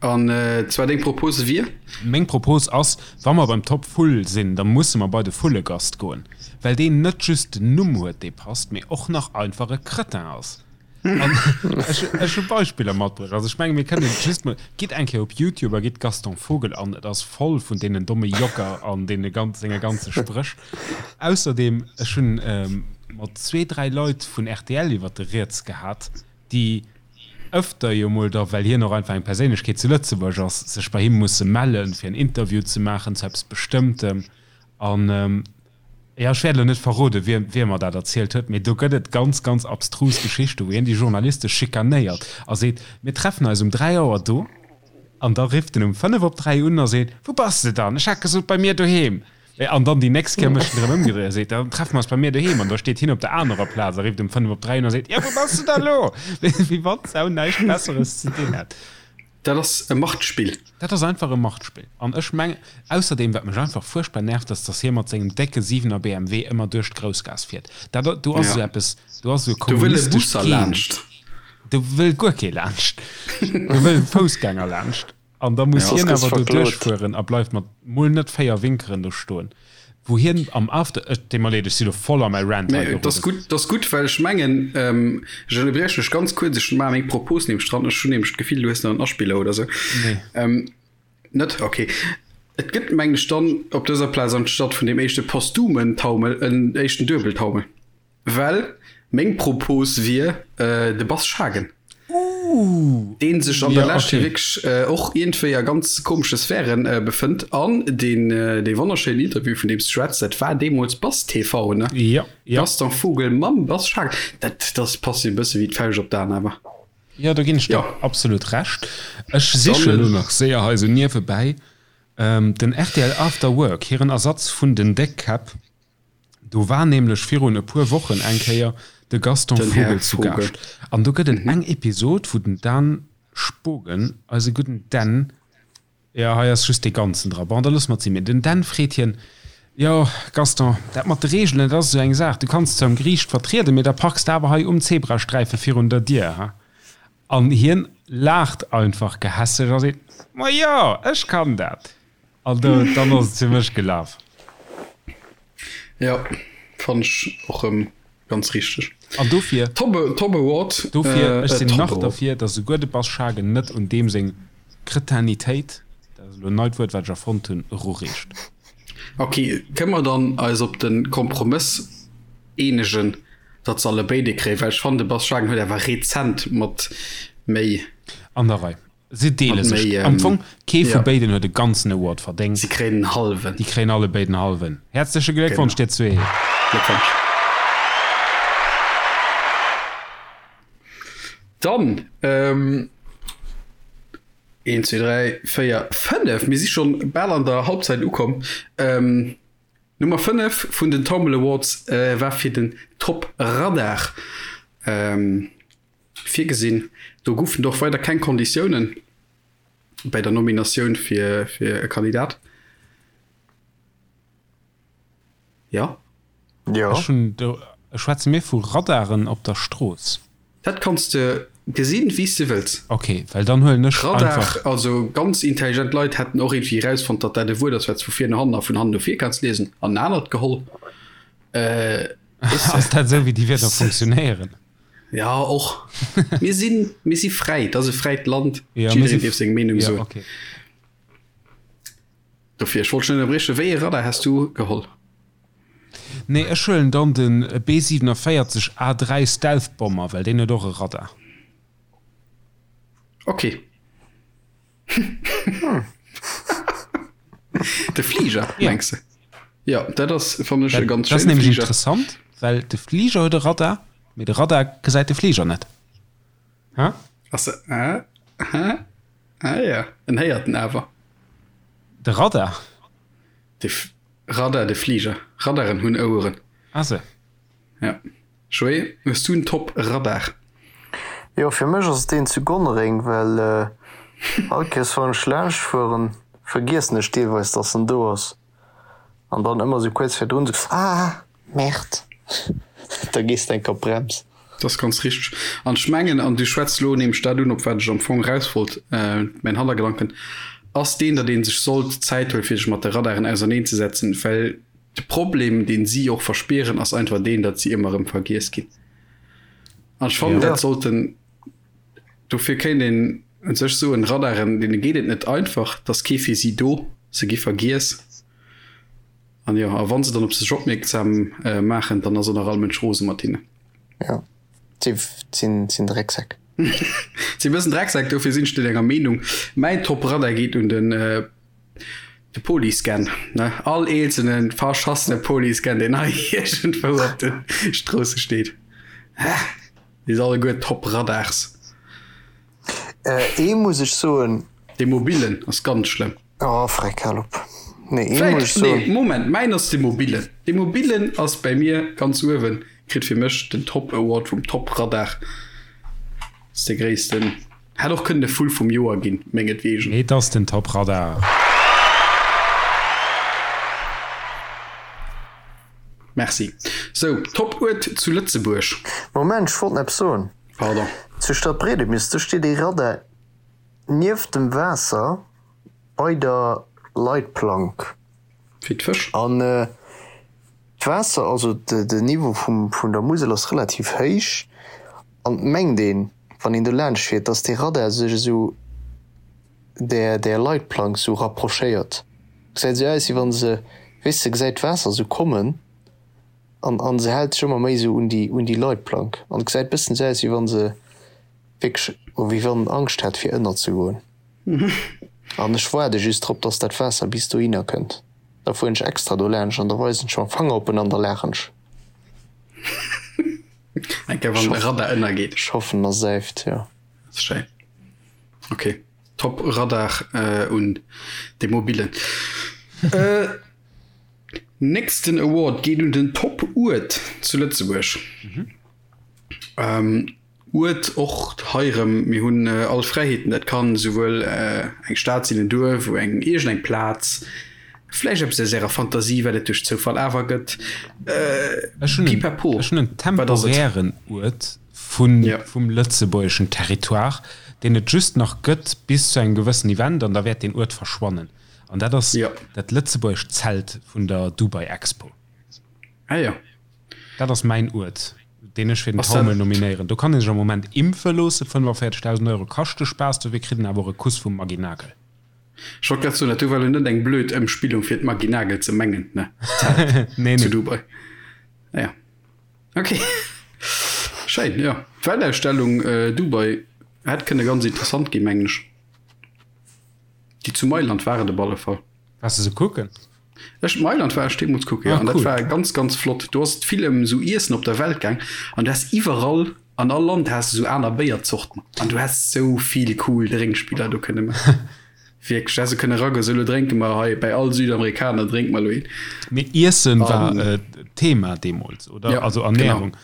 An zwar deng Propose wier? Meng Propose ass, wa mer beim Top Vull sinn, da musse mer bei de Vullegast goen, well deen net just den Numm huet, dee passt, mee och nach einfach e Cretin ass. An ech, ech hu Beispiller matbruecht. Also ech menge mir kënnen just mol, gitt eng Kéier op Youtube a gitt Gaston Vogel an, et ass voll vun deenen domme Jocker an deene ganz, senge ganze Spréch. Ausserdeem, ech hunn mat zwee, dräi Leit vun rtl iwwert de Rieds gehat, déi ëfter jo mol da, well hien och einfach eng Perséinlechkeet zu Lëtzebuerg ass, sech bei him musse mellen, fir en Interview ze maachen zu eppes Bestëmmtem. An, jo, ech wäert elo net verroden, wie, wie mer dat erzielt huet, mee do gëtt et ganz, ganz abstrus Geschichten, wou hien déi Journaliste schikanéiert a seet, Mir treffen eis um 3 Auer do. An da rifft en um 5 op 3 un a seet, Wou bass de dann? Ech hat gesot, bei mir doheem. An dann déi nächst Kéier mécht en erëm ëmgedréit a seet, Dann treffe mer eis bei mir doheem. An da steet hien op der anerer Plaz a rifft um 5 op 3 un a seet, Jo, wou bass de da lo? Wéi wann d'Sau näischt Besseres ze dinn hätt. Dat ass e Machtspill. Dat ass einfach e Machtspill. An ech mengen, ausserdeem, wat mech einfach fuerchtbar nervt, ass, dass hie mat sengem décke 7er BMW ëmmer duerch d'Groussgaass fiert. Dat, do ass esou eppes, do ass esou e Do wëll e kommunistescht Busser Gen. laanscht. Do wëll guer kee laanscht. Do wëll e Foussgänger laanscht. An da muss hien awer do duerchfueren a bleift mat mol net 4 Winkeren do stoen, wou hien am After, et deet mer leed, ech si lo voll a mäi Rant hei geroden. Dat ass gutt, dat ass gutt, well ech mengen, ech ënnerbrieche dech ganz kuerz, ech maache meng Propos nämlech dran, ech hunn nämlech d'Gefill, du hues nach en Aspiller oder sou. Nee. Net? Ok. Et gëtt, mengen ech, dann op dëser Plaz anstatt vun deem éischte posthumen Taumel en éischten Duebeltaumel. Well meng Propos wier de Bas Schagen. Deen sech an der Lescht jo wierklech och iergendwéi a ganz komesche Sphären befënnt. An deen dee wonnerschéinen Interview, vun deem s de schwätz, dat war deemools Bas TV, ne? Jo, jo. Gaston Vogel mam Bas Schagen. Dat, dat passt jo e bësse wéi d'Fauscht op d'An awer. Jo, do ginn ech der absolut Recht. Ech sichen elo nach séier hei esou niewebäi den rtl After Work, hiren Ersatz vun den Déckkäpp. Do war nämlech virun e puer Wochen eng Kéier de Gaston Vogel zu Gaascht. An do gëtt et eng Episod, wou den Dan Spogen, eise gudden Dan, jo, hei ass just dee Ganzen dra, bon, da loosse mer et sinn, mee den Dan freet hien, Jo, Gaston, dat mat de Reegelen, dat ass esou eng Saach, du kanns zwar um Geriicht vertrieden, mee da parks de awer hei um Zebrasträife virun der Dier, ha? An hien laacht einfach gehässeg a seet, Ma jo, ech kann dat! An do, dann ass et fir mech gelaf. Jo, fann ech och rëm ganz richteg. An dofir, Top, Top Award. Dofir, ech sinn nach derfir, datt esouguer de Bas Schagen net un deem seng Kretinitéit, dat ass elo en neit Wuert, wat ech erfonnt hunn, erureecht. Ok, kënne mer dann eis op de Kompromëss eenegen, datt se allebéid ee kréien? Well ech fannen, de Bas Schagen huet awer rezent mat méi. An der Rei. Si deele sech am Fong. Kee vu béiden huet e ganzen Award verdéngt. Si kréien en hallwen. Déi kréien allebéid en hallwen. Häerzleche Gléckwonsch, dir zwee! Gléckwonsch! Dann, een, zwee, dräi, véier, fënnef, mir si schonn bal an der Halbzeit ukomm. Nummer 5 vun den Tomble Awards war fir den Top Radar virgesinn. Do goufen et och weider keng Konditiounen bei der Nominatioun fir e Kandidat. Jo. Jo. Ech hunn do, schwätze mir vu Radaren op der Strooss? Dat kanns de gesinn, wéi s de wëlls. Ok, well dann huelen ech Radar, einfach. Also ganz intelligent Leit hätten och iergendwéi erausfonnt, datt dat e Wuert ass, wat s vu vir no hannen a vun hannen no vir kanns liesen, an en anert geholl. Weess de. Ass dat esou, wéi déi Wierder funktionéieren? Ja, och. Mir sinn, mir si fräi, et ass e fräit Land, jiddereen dierf seng Meenung soen. Ja, ok. Dofir, ech wollt dech net ënnerbriechen, wéi ee Radar häss du geholl? Nee, ech huelen dann den B 47 A3 Stealth Bomber, well deen huet och e Radar. Ok. De Fliger, mengs de? Jo, dat ass, fannen ech, e ganz schéine Fliger. Dat ass nämlech interessant, well de Fliger huet e Radar, mee de Radar gesäit de Fliger net. Ha? Ass se, ah, ah, ah ja, en héiert en awer. De Radar? De Radar, de Fliger. Radaren hunn Oueren. Ah se. Ja. Joé, hues du en Top Radar? Jo, fir mech ass et deen zu Gonnereng, well all Kéiers wann ech laanscht fueren, vergiessen ech deelweis dass en do ass. An dann ëmmer sou kuerz virdrun sou, Ah, Merde! Da gees de enk op d'Brems. Dat ass ganz richteg. An ech mengen, an du schwätz elo nämlech dat un, op wat ech am Fong eraus wollt, mäin Hannergedanken ass deen, datt ee sech sollt Zäit huelen, fir sech mat de Radaren auserneenzesetzen, well de Problem, dee si och verspieren, ass einfach deen, datt si ëmmer erëm vergiess ginn. An ech fannen, dat sollten, dofir kéint een u sech soen, Radaren, deene geet et net einfach, et ass kee fir si do, se gi vergiess. An jo, a wann se dann op sech opmierksam maachen, dann ass och nach all Mënsch rose mat hinnen. Jo, si sinn Drecksäck. Si e bëssen Drecksäck, dofir sinn ech net enger Meenung. Mäin Top Radar geet un den de Polyscan, ne? All eenzelne verschassene Polyscan, deen hei iergendwou op de Stroosse steet. Déi si alleguer Top Radars. Ee muss ech soen. Dee mobilen ass ganz schlëmm. Oh freck, hal op. Nee, ee muss ech soen. Nee, Moment, mäin ass dee mobilen. Dee mobilen ass bäi mir ganz uewen, kritt fir mech den Top Award vum Top Radar. Ass dee gréissten. Hätt och kënnen de Vull vum Joer ginn, mengetwegen. Et ass den Top Radar. Merci. Sou, Top Uert zu Lëtzebuerg. Moment, ech wollt nach eppes soen. Pardon. Zu Stadtbredemis, do steet ee Radar nieft dem Waasser bei der Leitplank. Fir d'Fësch. An d'Waasser, also den Niveau vum der Musel ass relativ héich an et mengt een, wann een do laanscht fiert, dass dee Radar sech esou där där Leitplank esou rapprochéiert. Gesäit esou aus, wéi wann se, weess de, gesäit d'Waasser esou kommen. An an se hält sech ëmmer méi esou un déi un déi Leitplank an et gesäit bëssen esou aus wéi wann se wierklech wéi wann Angscht hätt fir ënner ze goen. An ech waarde just drop dass dat Waasser bis dohinner kënnt. Da fueren ech extra do laanscht an da weisen ech mam Fanger op en an da laachen ech. Eng Kéier wann de Radar ënnergeet. Ech hoffen a säift, jo. Dat ass schéin. Ok, top Radar un de mobilen. Nächsten Award geet un den Top Uert zu Lëtzebuerg. Uert och hei erëm, mir hunn all Fräiheeten, dat kann esouwuel eng Stad sinn, en Duerf, eng iergend eng Plaz, vläicht eppes aus ärer Fantasie, wat et duerch Zoufall awer gëtt. Ech hunn Pipapo, ech hunn en wat ass et? temporären Uert vun vum lëtzebuergeschen Territoire, deen et just nach gëtt bis zu engem gewëssen Event an da wäert deen Uert verschwannen. An dat ass ja. dat lëtzebuergescht Zelt vun der Dubai Expo. Ah ja. Dat ass mäin Uert, deen ech fir den Taumel nominéieren. Do kann ee sech am Moment impfe loossen, 45.000 Euro kascht de Spaass, dofir kritt een awer och e Kuss vum Maggy Nagel. Ech wollt grad soen, dat do war lo net eng blöd Ëmspillung fir d'Maggy Nagel ze mengen, ne? D'Zelt Nee, zu nee. Dubai. Ah ja. Okay. Schéin, jo. D'Weltausstellung Dubai hätt kënne ganz interessant ginn, mengen ech. Déi zu Mailand war et op alle Fall. Waars de se kucken? Ech, Mailand war ech deemools kucken, jo. Ah, An dat cool. war ganz, ganz flott. Do ass et vill ëm esou Iessen op der Welt gaang an du has iwwerall, an all Land has de esou aner Béierzorten an du häss esou vill cool Drénkspiller do kënne maachen. Wierklech, du häss esou kënne eragoen, sou, elo drénke mer hei bäi all Südamerikaner drénke mer elo een. Mee Iessen war An Thema deemools, oder? Ja, Also genau. Ernährung.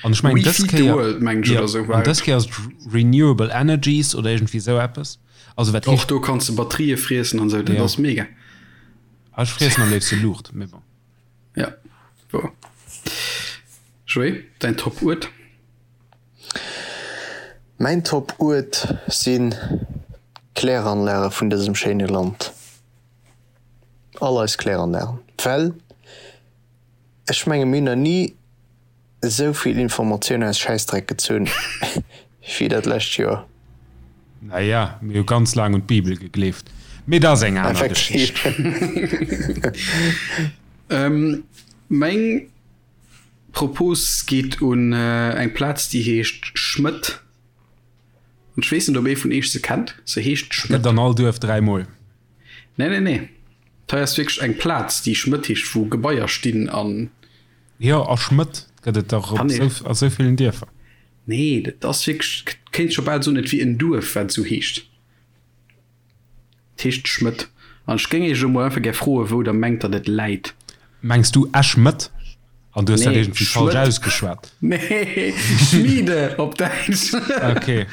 An ech mengen We dës feed the Kéier, world, mengen ech, jo, oder esou an war dës et. Kéier ass et Renewable Energies oder iergendwéi esou eppes. Also wat Och heescht. do kanns de Batterië friessen an esou, dat Ja. ass mega. Ah, ech friessen am léifste Luucht, mee bon. Ja, wouer. Joé, däin Top-Uert? Mäin Top-Uert sinn d'Kläranlage vun dësem schéine Land. All eis Kläranlagen. Well ech menge mir hunn nach ni esou vill Informatioun aus Schäissdreck gezunn wéi dat lescht Joer. Naja, mir hu ganz laang un d'Bibel gegleeft, mee dat ass eng aner Effektiv. Geschicht. Meng Propos geet un eng Plaz, déi heescht Schmëtt. An ech weess net, ob ee vun iech se kennt. Se heescht Gëtt Schmëtt. an all Duerf dräimol. Nee, nee, nee. Hei ass wierklech eng Plaz, déi Schmëtt heescht, wou Gebaier stinn an. Jo, a Schmëtt gëtt et dach op a sou villen Dierfer. Nee, dat ass wierklech, kéint scho bal soen, et wier en Duerf, wat esou heescht. Et heescht Schmëtt. An ech géing Iech elo mol einfach gär froen, wou Der mengt, datt et läit. Mengs du Esch-Mëtt? An du hues dat Nee, iergendwéi falsch Schmëtt. ausgeschwat? Nee, Schmiede op Däitsch. Okay.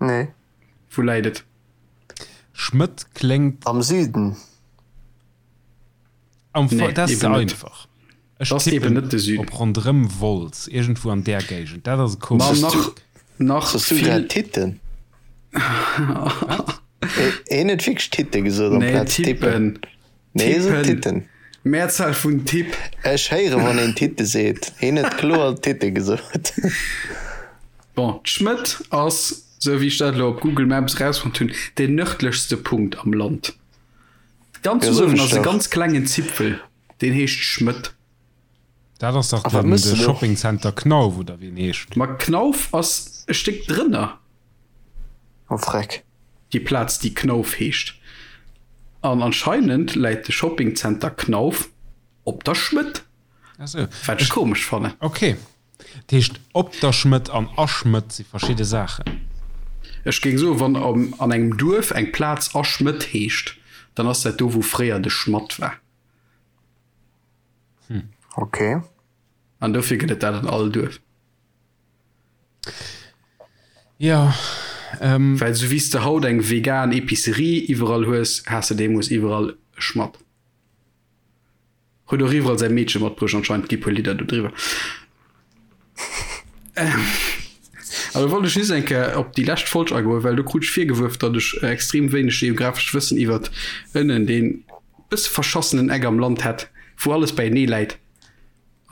Nee. Wou läit et? Schmëtt kléngt. Am Süden. Am Fo Nee, dat ass ze eben net. einfach. Ech Dat ass eben tippen net de Süden. op ronderëm Wolz, iergendwou an där Géigend. Dat ass e Ma komesch. nach, nach Sos du vill. grad Titten? Wat? Hien huet wierklech Titte gesot Nee, amplaz Tippen. Tippen. Nee, hie sot Tippen. Titten. Mehrzahl vun Tipp. Ech héiere wann een Titte seet. Hien huet kloer Titte gesot. Bon, d'Schmëtt ass, sou wéi ech dat elo op Google Maps erausfonnt hunn, deen nërdlechste Punkt am Land. Ganz Ja, soen uewen ech ass e dach. ganz klengen Zipfel, deen heescht Schmëtt. Dat ass dach A wat den, mëss de de do? Shoppingcenter Knauf oder wéi en heescht. Ma Knauf ass e Stéck drënner. Oh freck. Déi Plaz, déi Knauf heescht. An anscheinend läit de Shoppingcenter Knauf op der Schmëtt. Ach sou. Wat ech komesch fannen. Okay. Dat heescht, op der Schmëtt an a Schmëtt si verschidde Saachen. Ech géing soen, wann an engem Duerf eng Plaz a Schmëtt heescht, dann ass dat do, wou fréier de Schmatt war. Hm. Ok. An dofir gëtt et dat an all Duerf. Jo, ähm. Well sou wéi s de haut eng vegan Epicerie iwwerall hues, has de deemools iwwerall e Schmatt. Huet och iwwerall säi Meedche matbruecht anscheinend, gi puer Lidder do driwwer. An da wollt ech just eng Kéier op déi lescht Folg agoen, well do krut ech virgewuerf, datt ech extrem wéineg geografescht Wëssen iwwert ënnen dee bësse verschassenen Eck am Land hätt, wou alles beienee läit.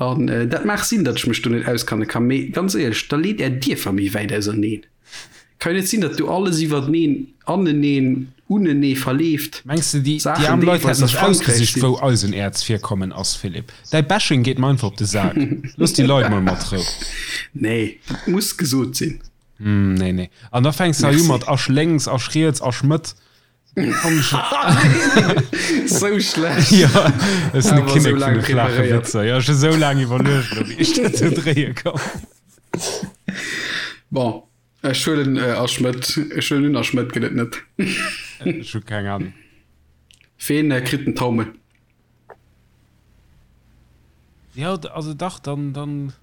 An dat maach sinn, datt ech mech do net auskanne kann, mee ganz éierlech, da leet är Dierfer méi wäit auserneen. Kann jo net sinn, datt do alles iwwerteneen, aneneen, unenee verleeft. Mengs de, déi Saachen aarm Leit deelweis hätten a sech Frankräich ausgesicht, sinn. wou Eisenäerzvirkommen ass, Philippe? Däi Bashing geet mer einfach op de Sak. Looss déi Leit mol mat Rou. Nee, dat muss gesot sinn. Nee, nee. An da fänks de hei u Merci. mat Asch lénks, Asch riets, Asch Mëtt. Sou schlecht. Jo, ech sinn de Awer Kinnek sou vun laang de flaache preparéiert. Witzer. Jo, ech hu sou laang iwwerluecht elo, wéi ech dat do dréie kann. Bon, ech huelen Asch Mëtt. Ech huelen un, Asch Mëtt gëtt et net. Ech hu keng Ahnung. Ween kritt den Taumel? Jo, also dach, dann, dann,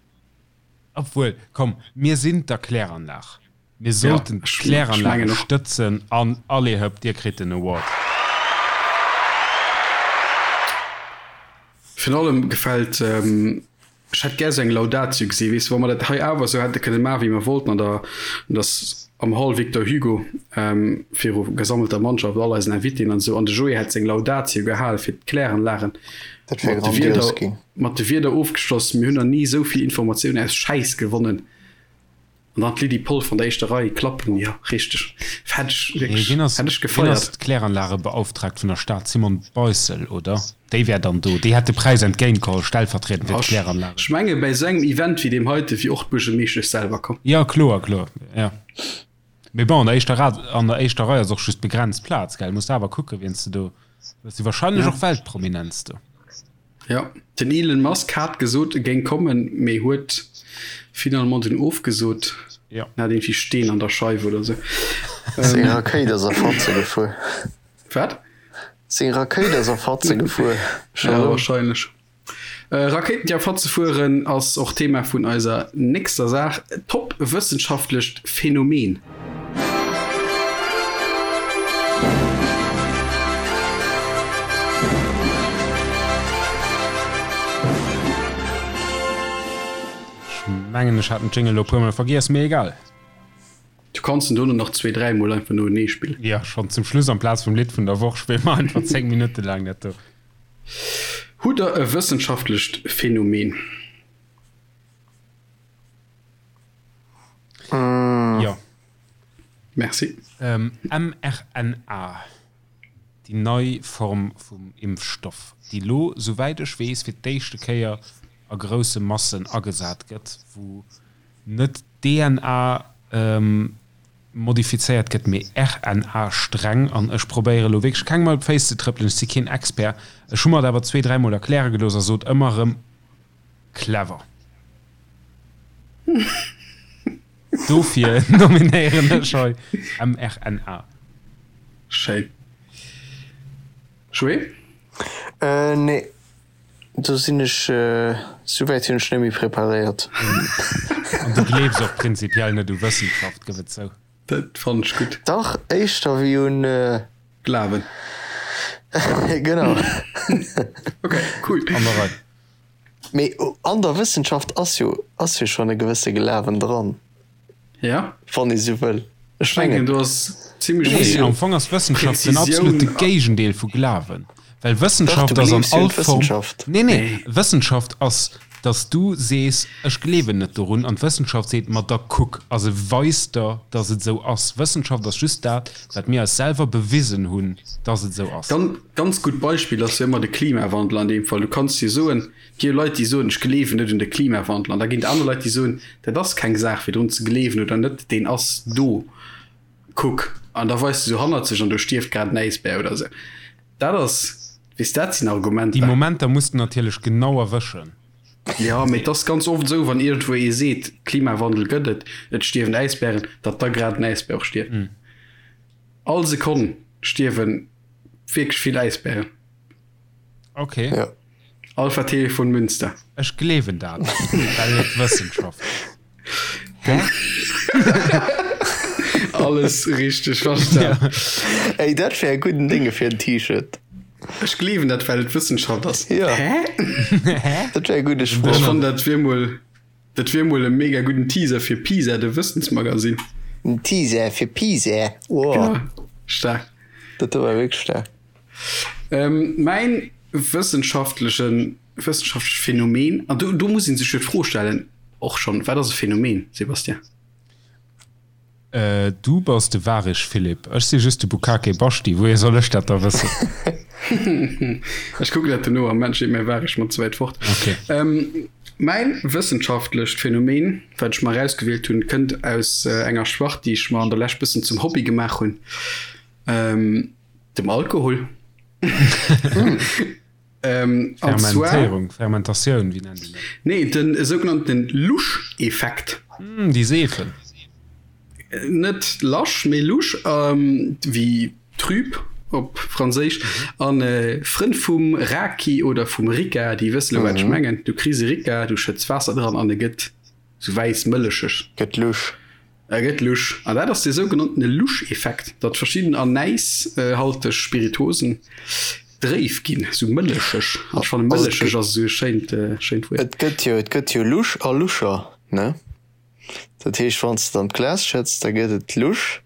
obwuel, komm, mir sinn d'Erkläranlag. Mir sollten d'Kläranlage stëtzen an allez hëpp, dir kritt den Award. Virun allem gefält, ech hätt gär sou eng Laudatio gesi, weess de, wa mer dat hei awer sou hätte kënne maachen, wéi mer wollten an der, an der, am Hall Victor Hugo viru gesammelter Mannschaft, all eisen Invitéen an esou, an de Joé hätt seng Laudatio gehal fir d'Kläranlagen, Dat wär mat de grandios Wierder, ginn. mat de Wierder ofgeschloss, mir hunn nach ni esou vill Informatioun aus Schäiss gewonnen. An dann d'Lydie Polf an der éischter Rei klappen, jo richteg, hätt ech wierklech, hätt ech Wien ass gefeiert. d'Kläranlagebeauftragt vun der Stad? Simone Beissel, oder? Déi wär dann do, déi hätt de Präis entgéintgeholl, stellvertriedend fir d'Kläranlagen. Ech menge bäi esou engem Event wéi deem heite wier och d'Buergermeeschtesch selwer komm. Jo, kloer, kloer, jo. Mee bon, an der éischter Rad, an der éischter Rei ass och just begrenzt Plaz, gell? Muss de awer kucken, wien s de do, do si wahrscheinlech och Weltprominenz do. Jo, den Elon Musk hat gesot, e géing kommen, mee huet finalement dunn ofgesot. Jo. En hat iergendwéi Steen an der Scheif oder sou. Seng Rakéit ass a Fatze gefuer. Wat? Seng Rakéit ass a Fatze gefuer. Ja, wahrscheinlech. Rakéiten déi a Fatze fueren ass och Thema vun eiser nächster Saach, Top wëssenschaftlecht Phänomen. Ech mengen ech hat den Jingle elo puer mol vergiess, mee egal. Du kanns en dono nach zwee, dräi mol einfach noenee spillen. Jo, schonn zum Schluss amplaz vum Lidd vun der Woch spille mer einfach 10 Minutte laang dat do. Hutt der e wëssenschaftlecht Phänomen? Jo. Merci. mRNA, déi nei Form vum Impfstoff, déi lo, souwäit ech weess, fir d'éischte Kéier a grousse Massen agesat gëtt, wou net d'DNA modifizéiert gëtt, mee RNA-Sträng. An ech probéiere lo wierklech kengem op d'Féiss ze trëppelen, ech si keen Expert, ech hu mer et awer zwee, dräimol erkläre gelooss a sot ëmmer erëm, Clever. Dofir nominéieren ech hei mRNA. Schéin. Joé? Nee, do sinn ech, souwäit hunn ech net méi preparéiert. An du gleefs och prinzipiell net u Wëssenschaft, gëff et zou. Dat fannen ech gutt. Dach, éischter wéi un. Glawen. Genau. Ok, cool. An der Rei. Mee an der Wëssenschaft ass jo, ass jo schonn e gewësse Glawen dran. Ja. Wann ee sou wëll. Ech mengen, do ass zimmlech Nee, vill am Fong ass Wëssenschaft den Präzisioun absolute a. Géigendeel vu Glawen. Well Dach, Wëssenschaft du ass an gleefs jo un all Form. d'Wëssenschaft. Nee, nee, Wëssenschaft ass, dass du sees, ech gleewen net dorun, an d'Wëssenschaft seet, ma da kuck, a se weist der, dass et esou ass. Wëssenschaft ass just dat, wat mir eis selwer bewisen hunn, dass et esou ass. Ganz, ganz gutt Beispill ass jo ëmmer de Klimawandel an deem Fall. Du kanns jo soen, et gi jo Leit, déi soen, ech gleewen net un de Klimawandel. An da ginn et aner Leit, déi soen, dat ass keng Saach fir drun ze gleewen oder net, deen ass do, kuck. An da weist e sou hannerzeg an do stierft grad en Äisbär oder esou. Dat ass, weess, dat sinn Déi Argumenter. Momenter muss de natierlech genau erwëschen. Jo, mee et ass ganz oft esou, wann iergendwou ee seet, Klimawandel gëtt et, et stierwen Äisbären, datt da grad en Äisbär och stierft. All Sekonn stierwe wierklech vill Äisbären. Ok. Ja. Alpha Telefon Münster. Ech gleewen dat, well et Wëssenschaft ass. Hä? Alles richteg verstan. Ey, dat wär e gudden Dénge fir en T-Shirt. Ech gleewen dat, well et Wëssenschaft ass. Ja. Hä? Hä? Dat wär e gudde Ech Sproch. fannen, dat wier mol, dat wier mol e mega gudden Teaser fir PISA, de Wëssensmagasinn. En Teaser fir PISA. Wow. Genau. Staark. Dat do war wierklech staark. Mäin wëssenschaftlechen, wëssenschaftlecht Phänomen, an do, do muss ee sech jo d'Fro stellen och schonn, Wat ass e Phänomen, Sébastien? Du bass de Warich Philippe, ech si just de Bukake Baschti, wouhier soll ech dat da wëssen? Ech kucken dat dono, am Moment steet mäi Warich mer ze wäit fort. Okay. Mäin wëssenschaftlecht Phänomen, wat ech mer erausgewielt hunn, kënnt aus enger Spart, déi ech mer an der Lescht bëssen zum Hobby gemaach hunn. Dem Alkohol. Ähm, an zwar, Fermentéierung, Fermentatioun, wéi nennt een dat? nee, den sougenannten Lusch-Effekt. Hm, déi Seefen. Net lasch, mee lusch, ähm, wéi trüb op Franséisch. An äh, Frënn vum Raki oder vum Ricca, déi wësse lo, wat ech mengen. Du kriss e Ricca, du schëtts Waasser dran an e gëtt sou wäiss mëllecheg. Gëtt lusch. E gëtt lusch. An dat ass dee sougenanntene Lusch-Effekt, datt verschidden anäishalteg Spirituosen dréif ginn, sou mëllecheg. An ech fannen, mëllecheg ass esou e schéint, schéint Wuert. Et gëtt jo, et gëtt jo lusch a luscher, ne? Dat heescht, wann s de et an d'Glas schëtts, da gëtt et lusch,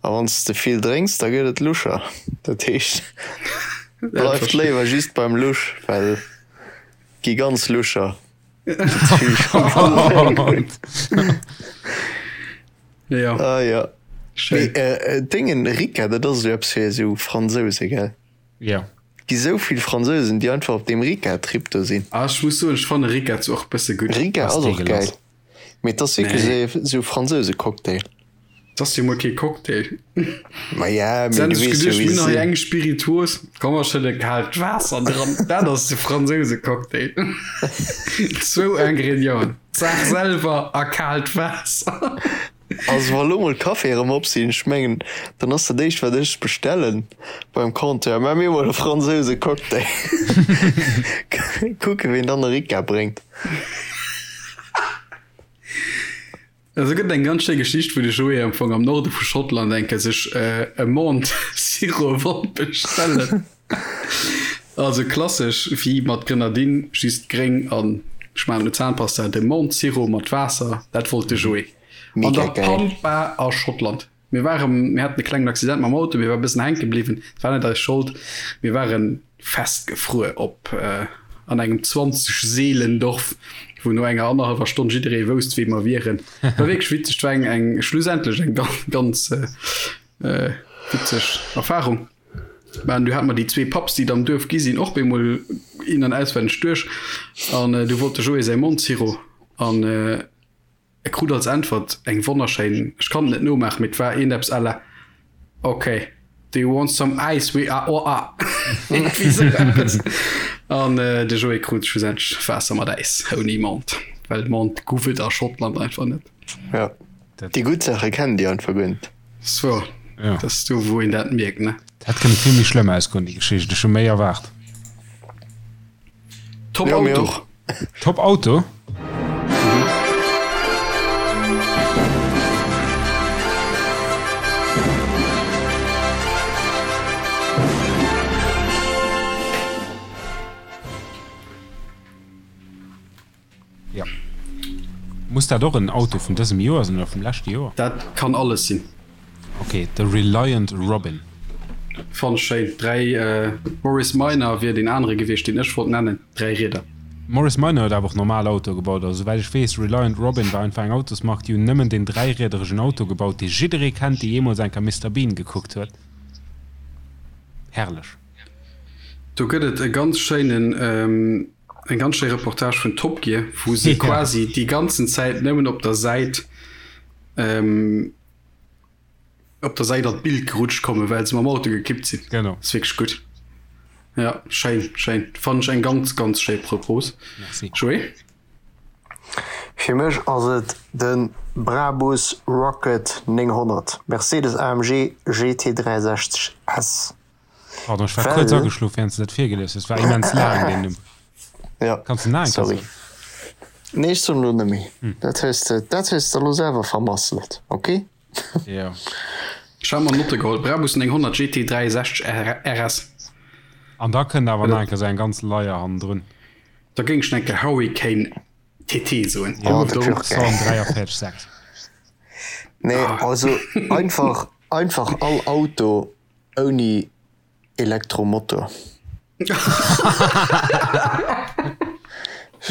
a wann s de vill drénks, da gëtt et luscher. Dat heescht, bleift léiwer just beim lusch, well et gi ganz luscher. Jo. Ah ja. Schéin. Mee äh, Déngen, Ricca, dat ass esou eppes fir esou Fransouse, gell? Jo. Gi sou vill Fransousen, déi einfach op deem Ricca-Trip do sinn. Ah, ech muss soen, ech fanne Ricca zwar och bësse gutt. Ricca Ass ass och geil, deegelass. mee et ass wierklech Nee. esou esou Fransouse-Cocktail. Et ass jo mol kee Cocktail. Ma ja, Se mee hunn du sech weess jo, geduecht, wéi mir se hunn hei sinn. eng Spirituos, komm mer schëdde kaalt Waasser dran. Dat ass de Fransouse-Cocktail. Zwou Ingredienten, d'Saach selwer a kaalt Waasser. Also wa lo mol d'Caféë rëm op sinn, ech mengen, dann ass dat éischt wat ech bestellen beim Compteur, Maach mir mol e Fransouse Cocktail. Kucke ween dann e Ricca bréngt. Also gëtt eng ganz schéi Geschicht, wou de Joé am Fong am Norde vu Schottland eng Kéier sech e Mont Sirop wollt bestellen. Also klassesch wéi mat Grenadine, just gréng an ech maachen elo Zahnpasta, de Mont Sirop mat Waasser, dat wollt de Joé. An Mega der geil. Pampa a Schottland. Mir waren, mir haten e klengen Accident mam Auto, mir war e bëssen hänke bliwwen, et war net eis Schold, mir ware festgefruer op an engem 20 Seelendorf, wou no enger annerhallwer Stonn jidderee wousst, wee mer wieren. War wierklech witzeg, et war eng, eng schlussendlech eng ganz, ganz witzeg Erfarung. Mä du hat mer déi zwee Pubs, déi et am Duerf gi sinn, och bemol in an auswenneg duerch. An du wollt de Joé säi Mondsiro an e krut als Äntwert eng wonnerschéin, ech kann et net nomaachen, mee et war iergendeppes à la Ok, do you want some ice we a or a? Iergendwéi esou eppes. An de Joé krut schlussendlech Waasser mat Äis, ouni Mond, well Mond guff et a Schottland einfach net. Ja, déi gutt Saache kennen déi einfach guer net. So, Ja. dat ass do, wou een dat mierkt, ne? Dat hätt kënne vill méi schlëmm ausgoen, déi Geschicht. Ech hu méi erwaart. Top Ja, mir Auto. och. Top Auto? Ja. Muss dat och en Auto vun dësem Joer sinn oder vum leschte Joer? Dat kann alles sinn. Ok, de Reliant Robin. Fann ech schéin. 3, Morris Minor wier deen anere gewiescht, deen ech wollt nennen. 3 Rieder. Morris Minor huet awer och normal Autoe gebaut. Also souwäit ech weess, Reliant Robin war einfach eng Autosmark, déi hunn nëmmen deen dräiriederegen Auto gebaut, dee jidderee kennt, dee jeemools eng Kéier Mister Bean gekuckt huet. Herrlech. Do gëtt et e ganz schéinen, eng ganz schéi Reportage vun Top Gear, wou se quasi déi ganzen Zäit nëmmen op der Säit, op der Säit an d'Bild gerutscht kommen, well se mam Auto gekippt sinn. Genau. Ass wierklech gutt. Ja, schéin, schéin. Fannen ech eng ganz, ganz schéi Propos. Merci. Joé? Fir mech ass et de Brabus Rocket 900, Mercedes AMG GT 63 S. Pardon, ech war kuerz ageschlof während s de dat virgelies hues. War immens laang deen Numm. Ja, Kanns de nach eng Kéier sorry. soen? Nee, ech soen elo net méi. Dat hues de, dat hues de elo selwer vermasselt, ok? Jo. Ech hat mer Notte geholl, Brabus 900 GT 63 RS. An da kënnt awer nach eng Kéier esou eng ganz Leier hannendrun. Da géing ech nach eng Kéier Hurricane TT soen. Jo, Oh, dat wier och geil. 143 6. Nee, also einfach, einfach all Auto Ouni Elektromotor.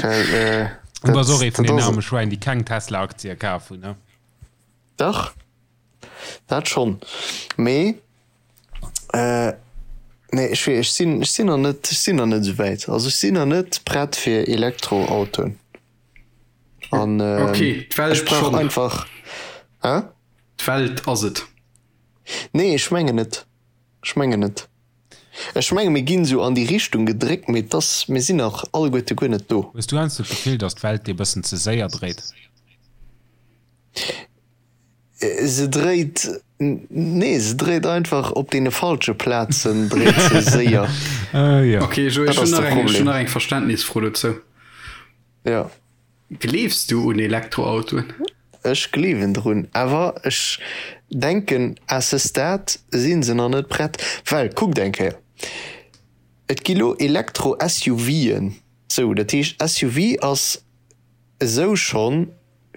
Well, Du bass och ee vun dat den ass arme et. Schwäin, déi keng Tesla-Aktie kaf hunn, ne? Dach, dat schonn. Mee, nee, ech wee, ech sinn, ech sinn nach net, ech sinn nach net esou wäit. Also ech sinn nach net prett fir Elektroautoen. An Okay, d'Welt ech brauch schonn. einfach, hä? D'Welt ass et. Nee, ech mengen net. Ech mengen net. Ech menge mir ginn esou an déi Richtung gedréckt, mee et ass, mir sinn nach alleguerte guer net do. Hues du heiansdo d'Gefill, datt d'Welt dir e bëssen ze séier dréit? Se dréit, nee, se dréit einfach op deene falsche Plazen dréit se séier. Jo. Ok, Joé, Dat ech ass hunn de nach eng, ech hunn Problem. nach eng Verständnisfro dozou. Jo. Gleefs du un Elektroautoen? Ech gleewen drun, awer ech denken à ce stade si se nach net prett, well kuckt eng Kéier, et gi lo Elektro-SUVen, sou, dat heescht SUV ass esou schonn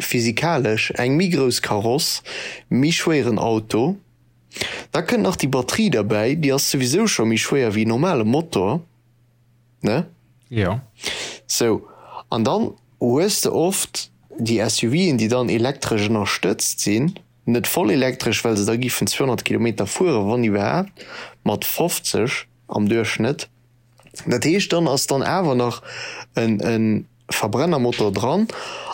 physikalesch eng méi grouss Kaross, méi schwéieren Auto, da kënnt nach déi Batterie derbäi, déi ass souwisou scho méi schwéier wéi en normale Motor. Ne? Jo. Sou, an dann hues de oft déi SUVen, déi dann elektresch ënnerstëtzt sinn, Net voll elektresch, well se da giffen 200 Kilometer fueren, wann iwwerhaapt, mat 50 am Duerchschnëtt. Dat heescht, dann ass dann awer nach e Verbrennermotor dran.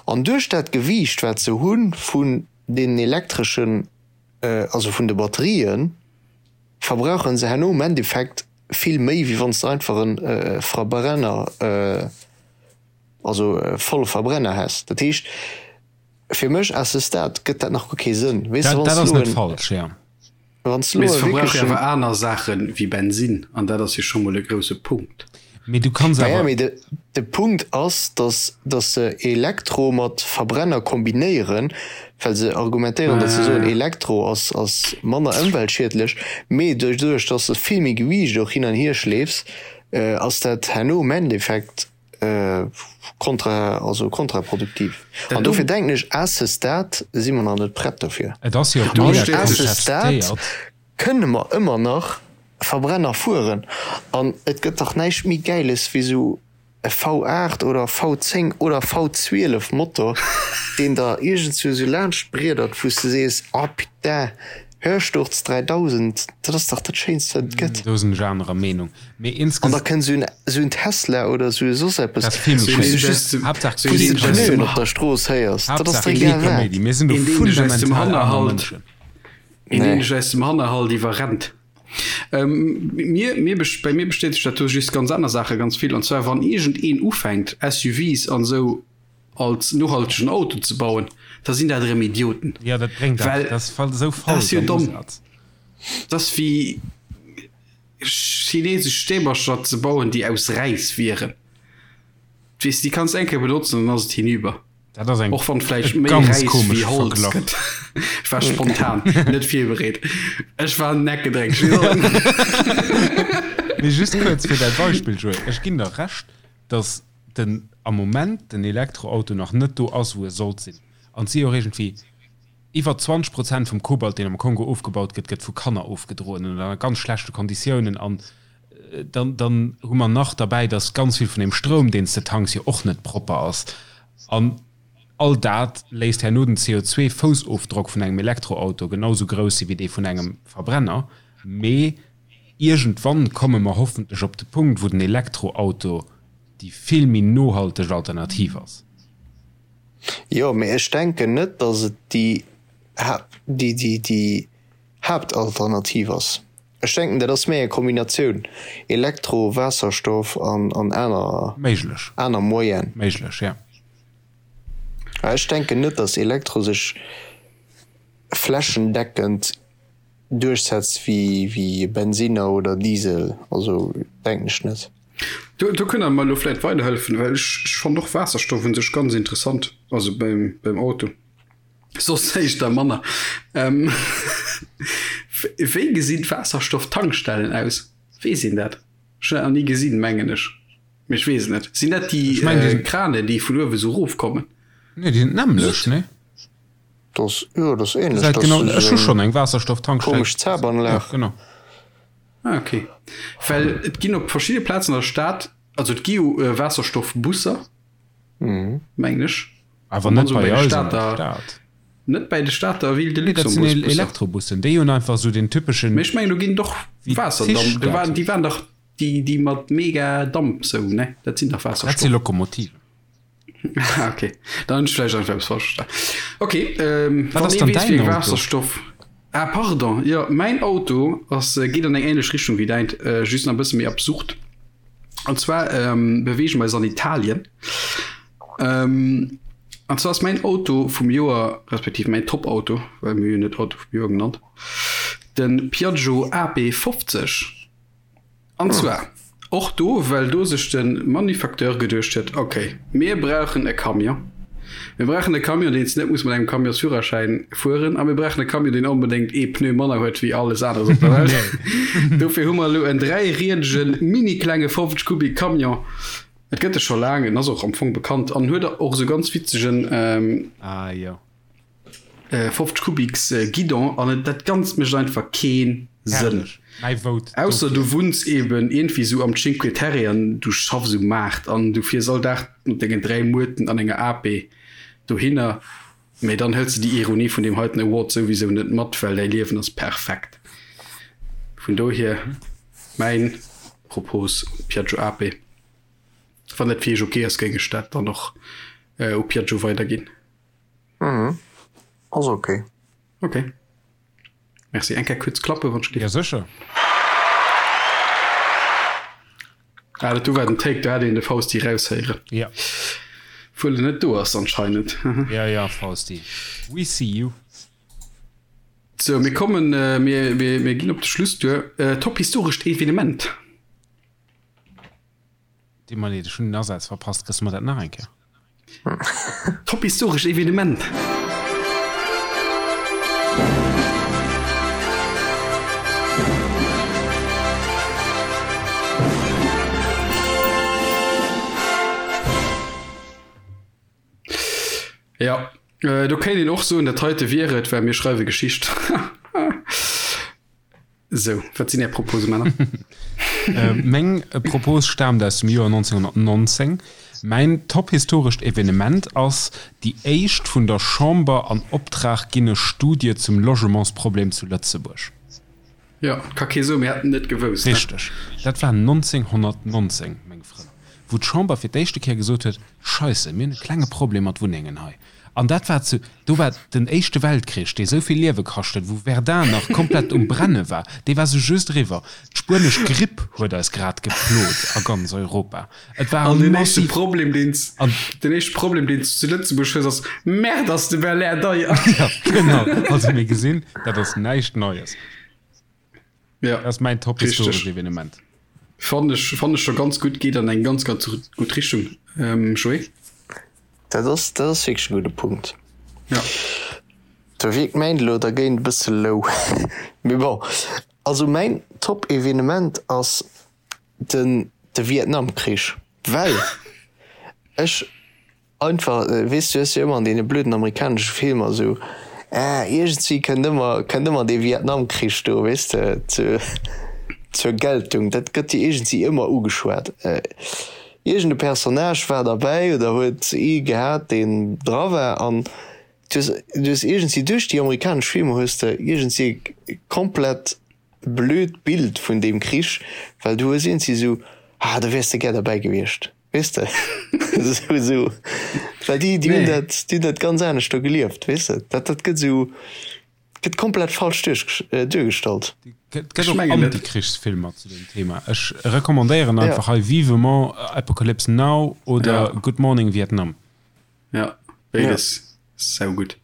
An duerch dat Gewiicht, wat se hu vun deenen elektreschen, also vun de Batterien, verbrauche se herno am Endeffekt vill méi, wéi wann s de einfach e Verbrenner, also e volle Verbrenner häss. Dat heescht, fir mech à ce stade gëtt dat nach guer kee Sënn. Weess de, wann s du elo en. Wann s du elo e verbrauche awer aner Saache wéi Bensinn, an dat ass jo scho mol e grousse Punkt. Mee du kanns awer. Naja, mee de, de Punkt ass, datt, datt se Elektro mat Verbrenner kombinéieren, well se argumentéieren, datt se soen, Elektro ass, ass manner ëmweltschiedlech, mee doduerch, datt s de vill méi Gewiicht och hin an hier schleefs, ass dat herno am Endeffekt kontra, also kontraproduktiv. An dofir denken ech, à ce stade si mer nach net prett dofir. Et ass jo och mega À ce stade kënne mer ëmmer nach Verbrenner fueren. An et gëtt dach näischt méi Gäiles wéi esou e V8 oder V10 oder V12 Motor, deen der iergendswou esou laanscht briedert, wou s de sees, Oh putain, Hörsturz 3000, dat ass dach dat Schéinst wat et gëtt. Do sinn ech anerer Meenung. Mee insges. An da kënnt esou en, esou en Tesla oder esou e soss eppes, Dat ass vill méi wou s du schéin. just, Haaptsaach wou s de keen d'Pneuen op der Strooss héiers. Dat ass Haaptsaach der kee egal wat. Kaméidi. Mir sinn do Een deen dech aus dem fundamental aner Hannerhalt, Mënschen. een deen Nee. dech aus dem Hannerhalt iwwerrennt. Mir, mir, bei mir bestätegt dat do just ganz aner Saache ganz vill. An zwar wann iergendeen ufänkt SUVs an esou als nohaltegen Auto ze bauen, da sinn dat erëm Idioten. Ja, dat bréngt dat, Well dat ass esou dat falsch ass jo am domm. Usaz. Dat ass wéi chinesesch Stäbercher ze bauen, déi aus Räis wieren. Weess, déi kanns eng Kéier benotzen an dann ass et hinüber. Dat ass eng Och wann vläicht e méi ganz Räis wéi komesche Holz Verglach. gëtt. Ech war spontan, net virbereet. Ech war neckedréck. Mee just kuerz fir däi Beispill, Joé, Ech ginn der Recht, datt den am Moment den Elektroauto nach net do ass, wou e sollt sinn. An et si jo och iergendwéi iwwer 20 Prozent vum Kobalt, deen am Kongo ofgebaut gëtt, gëtt vu Kanner ofgedroen an ënner ganz schlechte Konditiounen. An dann, dann hu mer nach derbäi, datt ganz vill vun deem Stroum, deen s de tanks, jo och net propper ass. An all dat léisst herno den CO2-Foussofdrock vun engem Elektroauto genau sou grouss si wéi dee vun engem Verbrenner. Mee iergendwann komme mer hoffentlech op de Punkt, wou den Elektroauto déi vill méi nohalteg Alternativ ass. Jo, mee ech denken net, datt et déi, déi, déi Haaptalternativ ass. Ech denken, dat ass méi eng Kombinatioun, Elektro, Waasserstoff an, an aner, Méiglech. aner Moyenen. Méiglech, ja. Ech denken net, datt Elektro sech flächendeckend duerchsetzt wéi, wéi Bensinner oder Diesel. Also denken ech net. Do, do kënnt Der mer elo vläicht weiderhëllefen, well ech, ech fannen och Waasserstoff un sech ganz interessant, also beim, beim Auto. Soss éischter manner. Ähm, wéi gesinn d'Waasserstofftankstellen aus? Weess een dat? Ech hunn dat nach ni gesinn, mengen ech. Mee ech weess et net. Sinn dat déi Ech mengen, déi äh, sinn. Kranen, déi vun uewe sou erofkommen? Nee, déi sinn d'nämmlecht, nee? Dat ass, jo, dat ass ähnlech. Gesäit Dat genau, ass ech hu esou schonn eng eng Waasserstofftankstell komesch gesinn. Jo, Zabanlag. genau. Ah, okay. Well et ginn op verschidde Plazen an der Stad, also et gi jo äh, Waasserstoffbusser, mengen ech. Awer net bei eis an der Stad. Net bäi de Stater Ville de Nee, dat sinn Luxembourg-Busser. Elektrobussen. Déi hunn einfach esou den typeschen. Mee ech mengen, do ginn doch Waasserdamp. Do waren, déi waren dach déi, déi mat mega Damp sou, ne? Dat sinn dach Dat si Waasserstoff. Lokomotiven. Ah, okay. Dann hunn ech vläicht einfach eppes falsch verstanen. Okay, ähm, Wat wann ass ee dann weess, däin wéi Auto? Waasserstoff. Ah, pardon. Jo, mäin Auto ass, geet an eng ähnlech Richtung wéi däint, just nach e bësse méi absurd. An zwar ähm, beweege mer eis an Italien. Ähm, an zwar ass mäin Auto vum Joer, respektiv mäin Top-Auto, well mir hunn net Auto vum Joer genannt, de Piaggio AP 50. An zwar och do, well do sech de Manufacteur geduecht huet, okay, mir brauchen e Camion. Mir brauchen e Camion, deen s net muss mat engem Camionsführerschäin fueren a mir brauchen e Camion, deen onbedéngt ee Pneu manner huet wéi alles aneres op der Welt. Dofir hu mer elo en dräiriedegen, mini-klenge 50 Kubik Camion. Et gëtt e scho laang, en ass och am Fong bekannt an huet och esou ganz witzegen Ah jo. 50 Kubiks Guidon an et dat Ganzt mécht einfach kee Sënn. Herrlech. Mäi Vote Ausser dofir. du wunns eben iergendwéi esou am Cinque Terre an du schaffs um Maart an du fiers all Dag mat dengen 3 Muerten an enger AP dohinner. Mee dann hëls de déi Ironie vun deem heiten Award souwisou net mat, well däi Liewen ass perfekt. Vun dohier mäin Propos un d'Piaggio Ape. Wann dat fir iech ok ass, géing ech dat dann och u Piaggio weiderginn. Mhm, ass ok. Ok. Merci. Eng Kéier kuerz klappen, wann ech dierf. Jo, sécher. Ah, dat do war den Take, do hat een de Fausti raushéieren. Ja. Wuel en net do ass anscheinend. Ja, ja, Fausti. We see you. Sou, mir kommen, mir, mir, mir ginn op de Schluss duer. Top historescht Evenement. Deet mer leed, ech hunn den Asaz verpasst. Kriss mer dat nach eng Kéier? Top historescht Evenement! Jo, do kéint een och soen, dat heite wier et, well mir schreiwe Geschicht. Sou, wat sinn Är Propose, Männer? Meng Propos staamt aus dem Joer 1919. Mäin tophistorescht Evenement ass déi éischt vun der Chamber an Optrag ginne Studie zum Logementsproblem zu Lëtzebuerg. Jo, ka kee soen, mir hätten net gewousst, ne? Richteg. Dat war 1919, meng Frënn, wou d'Chamber fir d'éischte Kéier gesot huet, Scheisse, mir hunn e klenge Problem mat Wunnengen hei. An dat war zu, do war den Éischte Weltkrich, dee sou vill Liewe kascht huet, wou Verdun nach komplett um Brenne war, dee war sou just eriwwer. D'spuenesch Gripp huet eis grad geplot a ganz Europa. Et war An deen éischte massiv. Problem, deen s, An. den éischte Problem, deen s du zu Lëtzebuerg hues, ass, Merde, ass de Belair deier! Ja, genau. Also mir gesinn, dat ass näischt Neies. Ja, Dat ass mäin top historescht Evenement. Fannen ech, fannen ech scho ganz gutt, geet an eng ganz, ganz gutt Richtung, Joé. Dat ass, dat ass wierklech e gudde Punkt. Ja. Do wierkt mäin elo dergéint e bësse low. Mee bon, also mäin top Evenement ass den, de Vietnamkrich, well ech Einfach, weess du hues jo ëmmer an deene blöden amerikanesche Filmer esou, ah, iergendwéi kënnt ëmmer, kënnt ëmmer dee Vietnamkrich do, weess de, zu, zur Geltung. Dat gëtt jo iergendwéi ëmmer ugeschwat. Iergend e Personnage war derbäi oder huet ee gehat, deen dra war an du hues, du hues iergendwéi duerch déi amerikanesch Filmer hues de iergendwéi e komplett blöd Bild vun deem Krich, well du hues iergendwéi esou, ah, do wäers de gär derbäi gewiescht. Weess de? Esou, esou. Well déi, déi hunn dat, déi hunn dat ganz anescht do gelieft, weess de? Dat, dat gëtt esou, gëtt komplett falsch duerch, duergestallt. Et gëtt och Antikrichsfilmer zu deem Thema. Ech recommandéieren einfach hei vivement Apocalypse Now oder Good Morning Vietnam. Ja, béides saugutt.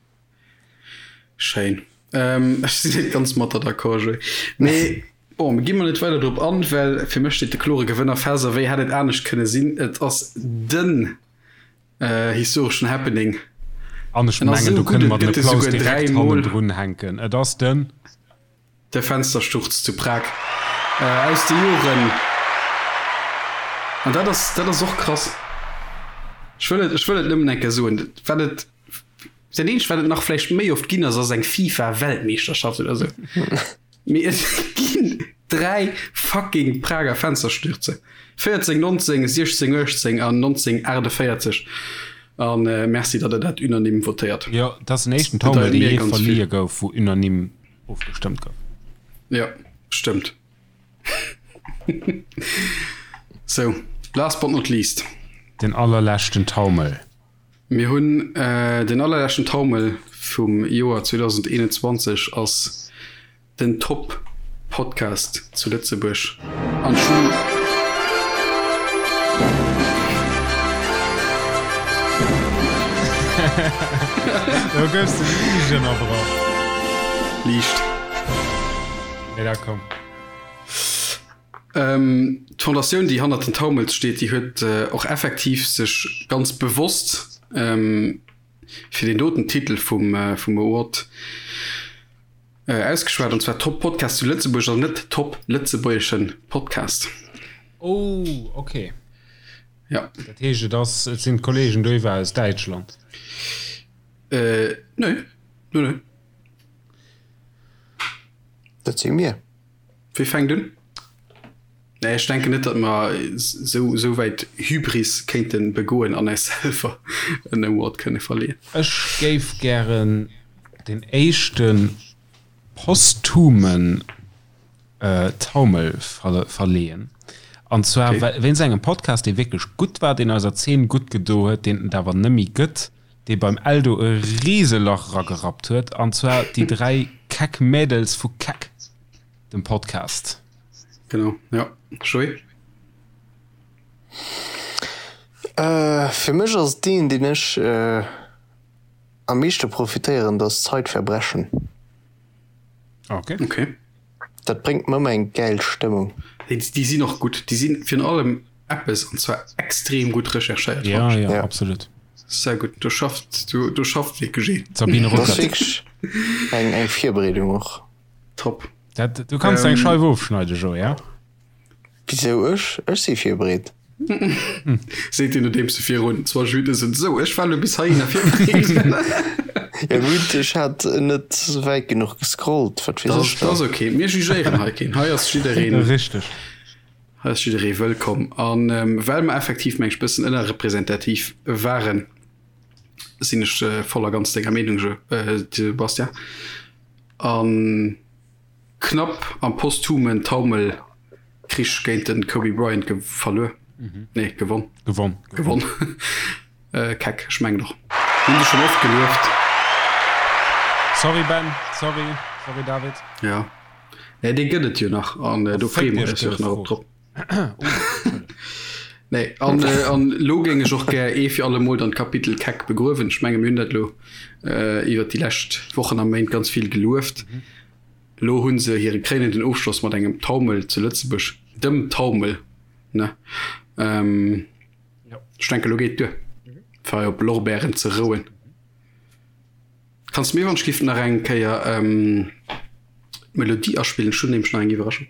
Schéin. Ech sinn net ganz mat der d'accord, Joé. Mee bon, mir gi mol net weider drop an, well fir mech steet de klore Gewënner fest. A wéi hätt et anescht kënne sinn? Et ass den historeschen Happening. An ech mengen, do kënne mer den Applaus direkt hannendrun hänken. Et ass den. De Fenstersturz zu Prag aus de Joren. An dat ass, dat ass och krass. Ech wëll et, ech wëll et nëmmen eng Kéier soen, wat et, dat eenzegt, wat et nach vläicht méi oft ginn ass, ass eng FIFA-Weltmeeschterschaft oder esou. Mee et ginn 3 fucking Prager Fensterstürze. 14, 19, 16, 18 an 1948. An merci, datt Der dat unanime votéiert. Jo, dat ass den éischten Taumel, dee jee verlieh gouf, wou unanime ofgestëmmt gouf. Jo, stëmmt. Sou, last but not least. Den allerleschten Taumel. Mir hunn den allerleschten Taumel vum Joer 2021 ass den Top Podcast zu Lëtzebuerg an ech hunn. Do goufs de liicht ënnerbrach. Liicht. Mee da komm. D'Fondatioun, déi hannert den Taumels steet, déi huet och effektiv sech ganz bewosst fir deen doten Titel vum Award ausgeschwat, an zwar Top Podcast zu Lëtzebuerg an net Top lëtzebuergeschen Podcast. Oh, okay. Ja. Dat heescht, et ass, et sinn d'Kollegen doiwwer aus Däitschland? Äh, nee. Nee, nee. Dat si mir. Wie fänkt un? Nee, ech denken net, datt mer esou esou wäit Hybris kéinte begoen an eis selwer en Award kënne verleeën. Ech géif gären den éischte posthumen Taumel verleeën. An zwar wéinst engem Podcast, dee wierklech gutt war, deen eiser Zeen gutt gedo huet, deen et awer nëmmi gëtt, dee beim Eldo e Riselach eragerappt huet, an zwar déi 3 keck Mädels vu Keck, dem Podcast. Genau, ja. Joé? Fir mech ass et deen, deen ech am meeschte profitéieren, dat ass Zeitverbrechen. Okay. Okay. Dat bréngt mer ëmmer eng gäil Stëmmung. Déi, déi sinn och gutt. Déi sinn virun allem eppes, an zwar extrem gutt recherchéiert. Ja, ja, ja, absolut. Sehr gutt. Do schafft, do, do schafft wierklech een. D'Sabine Ruckert. Dat ass wierklech eng, eng Virbereedung och. Top. Dat, du kanns eng Scheif ofschneiden, Joé, ja? Wisou ech? Ech si virbereet. Seet hien nodeems e virun 20 Minutten sot, Sou, ech war elo bis heihinner virbereet. Ja gutt, ech hat net wäit genuch gescrollt, wat weess ech Dat da. ass ok, mir jugéieren hei keen. Hei ass jiddereen. Richteg. Hei ass jidderee wëllkomm. An well mer effektiv, meng ech, bëssen ënnerrepresentativ waren, sinn ech voll a ganz denger Meenung, Jo, Sebastian. An knapp am posthumen Taumelkrich géint den Kobe Bryant ge verluer. Nee, gewonn. Gewonn. Gewonn. Keck, ech mengen och. Hunn se schonn oft gelueft. Sorry Ben, sorry, sorry David. Ja. Nee, dee gëtt et jo nach an do freeë mer eis jo och nach op drop. Nee, an, äh, an lo géing ech och gär ee fir alle Mol dann d'Kapitel Keck begruewen. Ech menge mir hunn dat lo äh, iwwer déi lescht Wochen a Méint ganz vill gelueft. Mhm. Lo hunn se hire kréinenden Ofschloss mat engem Taumel zu Lëtzebuerg, dem Taumel, ne? Ähm, ja. Ech denke lo geet duer, mhm. fir op Lorbeeren ze rouen. Kanns de mir wann ech giff nach eng Kéier d'Melodie aspillen? Ech hunn nämlech nach eng Iwwerraschung.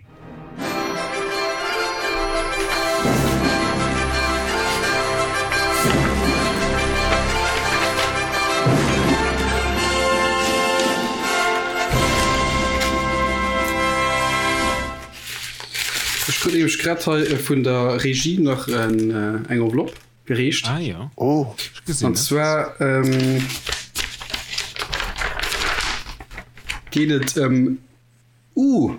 Ech krut nämlech grad hei vun der Regie nach eng Enveloppe. Gereecht. Ah ja. Oh. Ech gesinn An et. zwar ähm, geet et ëm uh,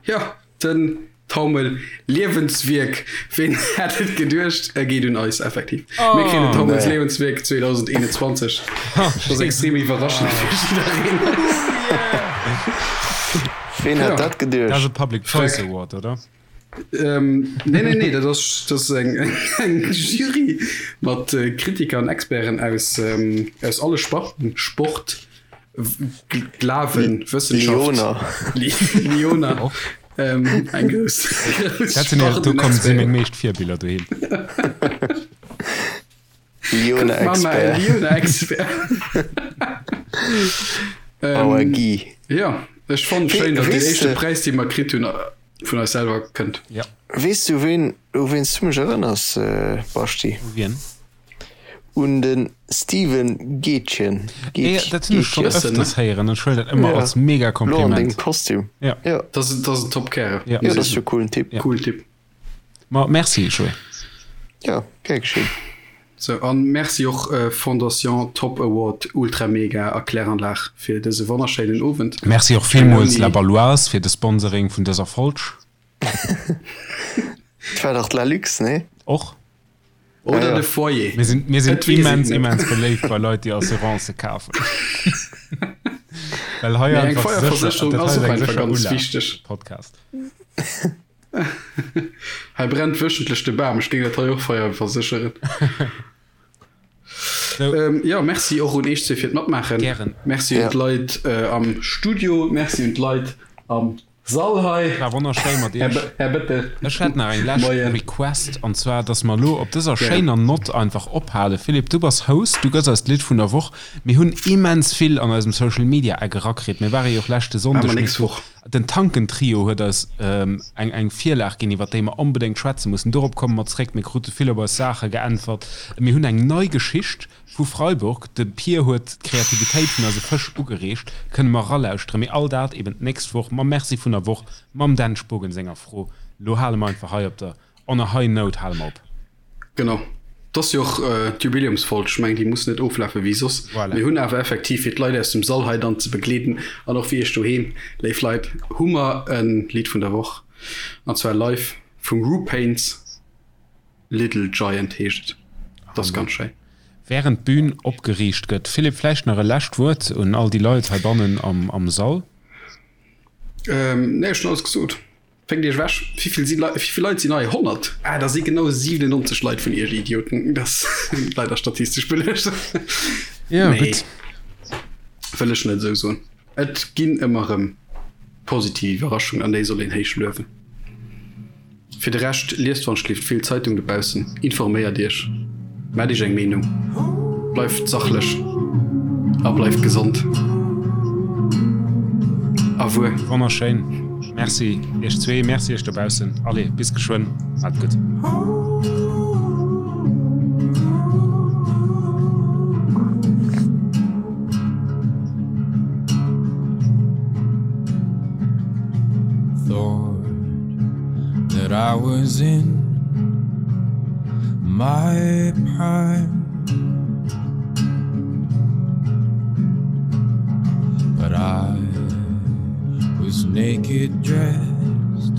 ja, den Taumel Liewenswierk. Ween hätt et geduecht? E geet un eis effektiv. Mir kréien den Oh. Taumels Nee. Liewenswierk 2021. Dat ass extrem iwwerraschend fir jiddereen. Ween hätt Ja. dat Dat ass e geduecht? Public Choice Freck. Award, oder? Ähm, nee, nee, nee, dat ass, dat ass eng, eng Jury mat äh, Kritiker an Experten aus, ähm, aus alle Sparten, Sport, Glawen, Wëssenschaft. Lyoner. Lyoner. Ähm, eng grouss, grouss Dat sinn ja, do kommen si meng meescht Virbiller dohin. Lyoner-Expert. Lyoner-Expert. Our Guy. Ja, ech fand schéin, datt den éischte Präis, dee mer kritt hunn, vun eis selwer kënnt. Ja. Weess du ween, u ween s du mech erënners, Baschti? U wien? Un de Steven Gätjen. Ey, dat hunn ech schonn ëfters héieren an ech huelen dat ëmmer als mega Lo an dengem Kompliment. Kostüm. Ja. Ja. Dat ass, dat ass en top Kärel. Ja. Ja, dat ass jo coolen Typ. Ja. Coolen Typ. Ma merci, Joé. Ja, gär geschéen. Sou, an merci och Fondation Top Award Ultra Mega a Kläranlag fir dëse wonnerschéinen Owend. Merci och villmools La Baloise fir de Sponsoring vun dëser Folg. Et war dach d'La Luxe, nee? Och. Oder ja. de Foyer. Mir sinn, mir sinn Et weess immens, een net. immens beléift bei Leit, déi Assurancë kafen. Well hei Mee eng einfach sécher, Feierversécherung dat ass hei och ass eng einfach sécher ganz Ulaaf, wichteg. Podcast. Hei brennt wöchentlech de Bam, ech géing dat hei och feierversécheren. So. Ähm, ja, merci och un eech zwee fir d'Matmaachen. Gären. Merci un Ja. d'Leit äh, am Studio, merci un d'Leit am Sall hei. War wonnerschéi mat Här, iech. Här Bettel. Ech hätt nach eng lescht Moien. Request, an zwar, dass mer elo op dëser Gären. schéiner Nott einfach ophalen. Philippe, du bass Host, du gëss eis d'Lidd vun der Woch. Mir hunn immens vill an eisem Social Media Eck erakritt. Mir ware jo och leschte Maache Sonndeg mer mit nächst Woch. Den Tanken-Trio huet eis eng eng Virlag ginn, iwwer déi mer onbedéngt schwätze mussen. Dorop komme mer zréck. Mir krute vill op eis Saache geäntwert. Mir hunn eng nei Geschicht vu Freiburg. De Pir huet d'Kreativitéit vun eise Fësch ugereegt. Kënne mer eralauschteren. Mee all dat eben d'nächst Woch mam Merci vun der Woch, mam Dan Spogen senger Fro. Lo hale mer einfach hei op der on a high note hale mer op. Genau. Et ass jo och d'Jubiläumsfolg, ech mengen déi muss net oflafe wéi soss. Voilà. Mir hunn awer effektiv, fir d'Leit aus dem Sall hei dann ze begleeden an och fir iech doheem, léif Leit, hu mer e Lidd vun der Woch, an zwar live vum Ru Paints, Little Giant heescht et. Et ass ganz schéin. Während d'Bün opgeriicht gëtt, Philippe, vläicht nach e lescht Wuert un all déi Leit heibannen am Sall? Nee, ech hunn alles gesot. Fénkt iech ewech. Wéivill si Leit, wéivill Leit sinn hei? 100? Ah, da si genau 97 Leit vun iech Idioten. Dat ass leider statistesch beluecht. Ja, nee. gutt. Wëll ech net esou soen. Et ginn ëmmer erëm positiv Iwwerraschungen an déi soll een héich luewen. Fir de Rescht, liest wann schlift vill Zeitung dobaussen, informéiert iech, maacht iech eng Meenung, bleift sachlech a bleift gesond. Au revoir. Wonnerschéin. Merci iech zwee, merci iech dobaussen. Allez, bis geschwënn. Maacht et gutt. Thought that I was in my prime But I was naked dressed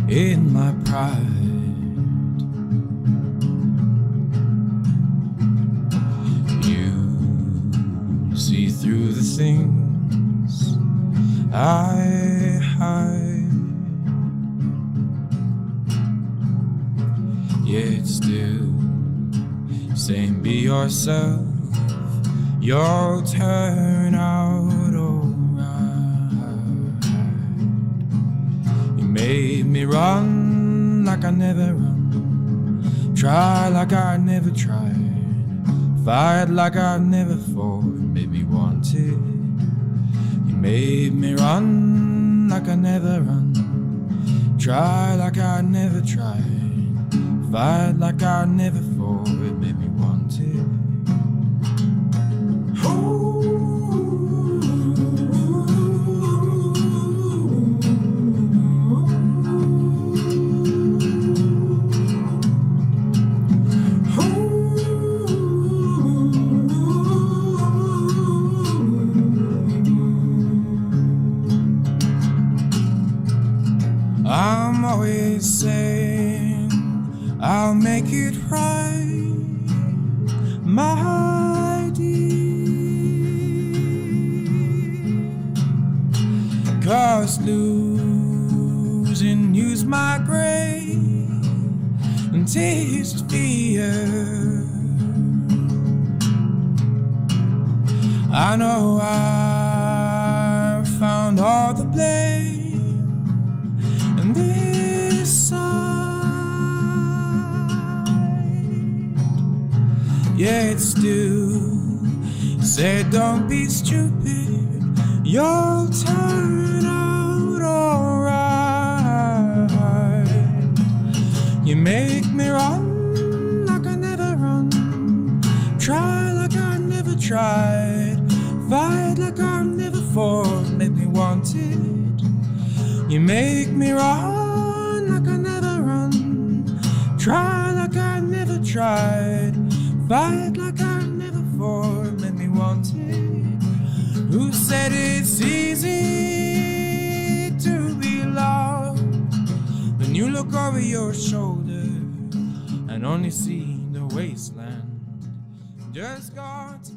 in my pride You see through the things I hide Yet still saying be yourself You'll turn out alright You made me run like I never run Try like I never tried Fight like I never fought Made me want it You made me run like I never run Try like I never tried Fight like I never fought It made me want it I'm always saying I'll make it right my dear Cause losing you's my grave and taste fear I know I found all the blame and this side Yet still say don't be stupid you'll turn out alright You make me run like I never run Try like I never tried Fight like I never fought Make me want it You make me run like I never run Try like I never tried Fight like I never fought Make me want it Who said it's easy to be loved When you look over your shoulder And only see the wasteland Just got to.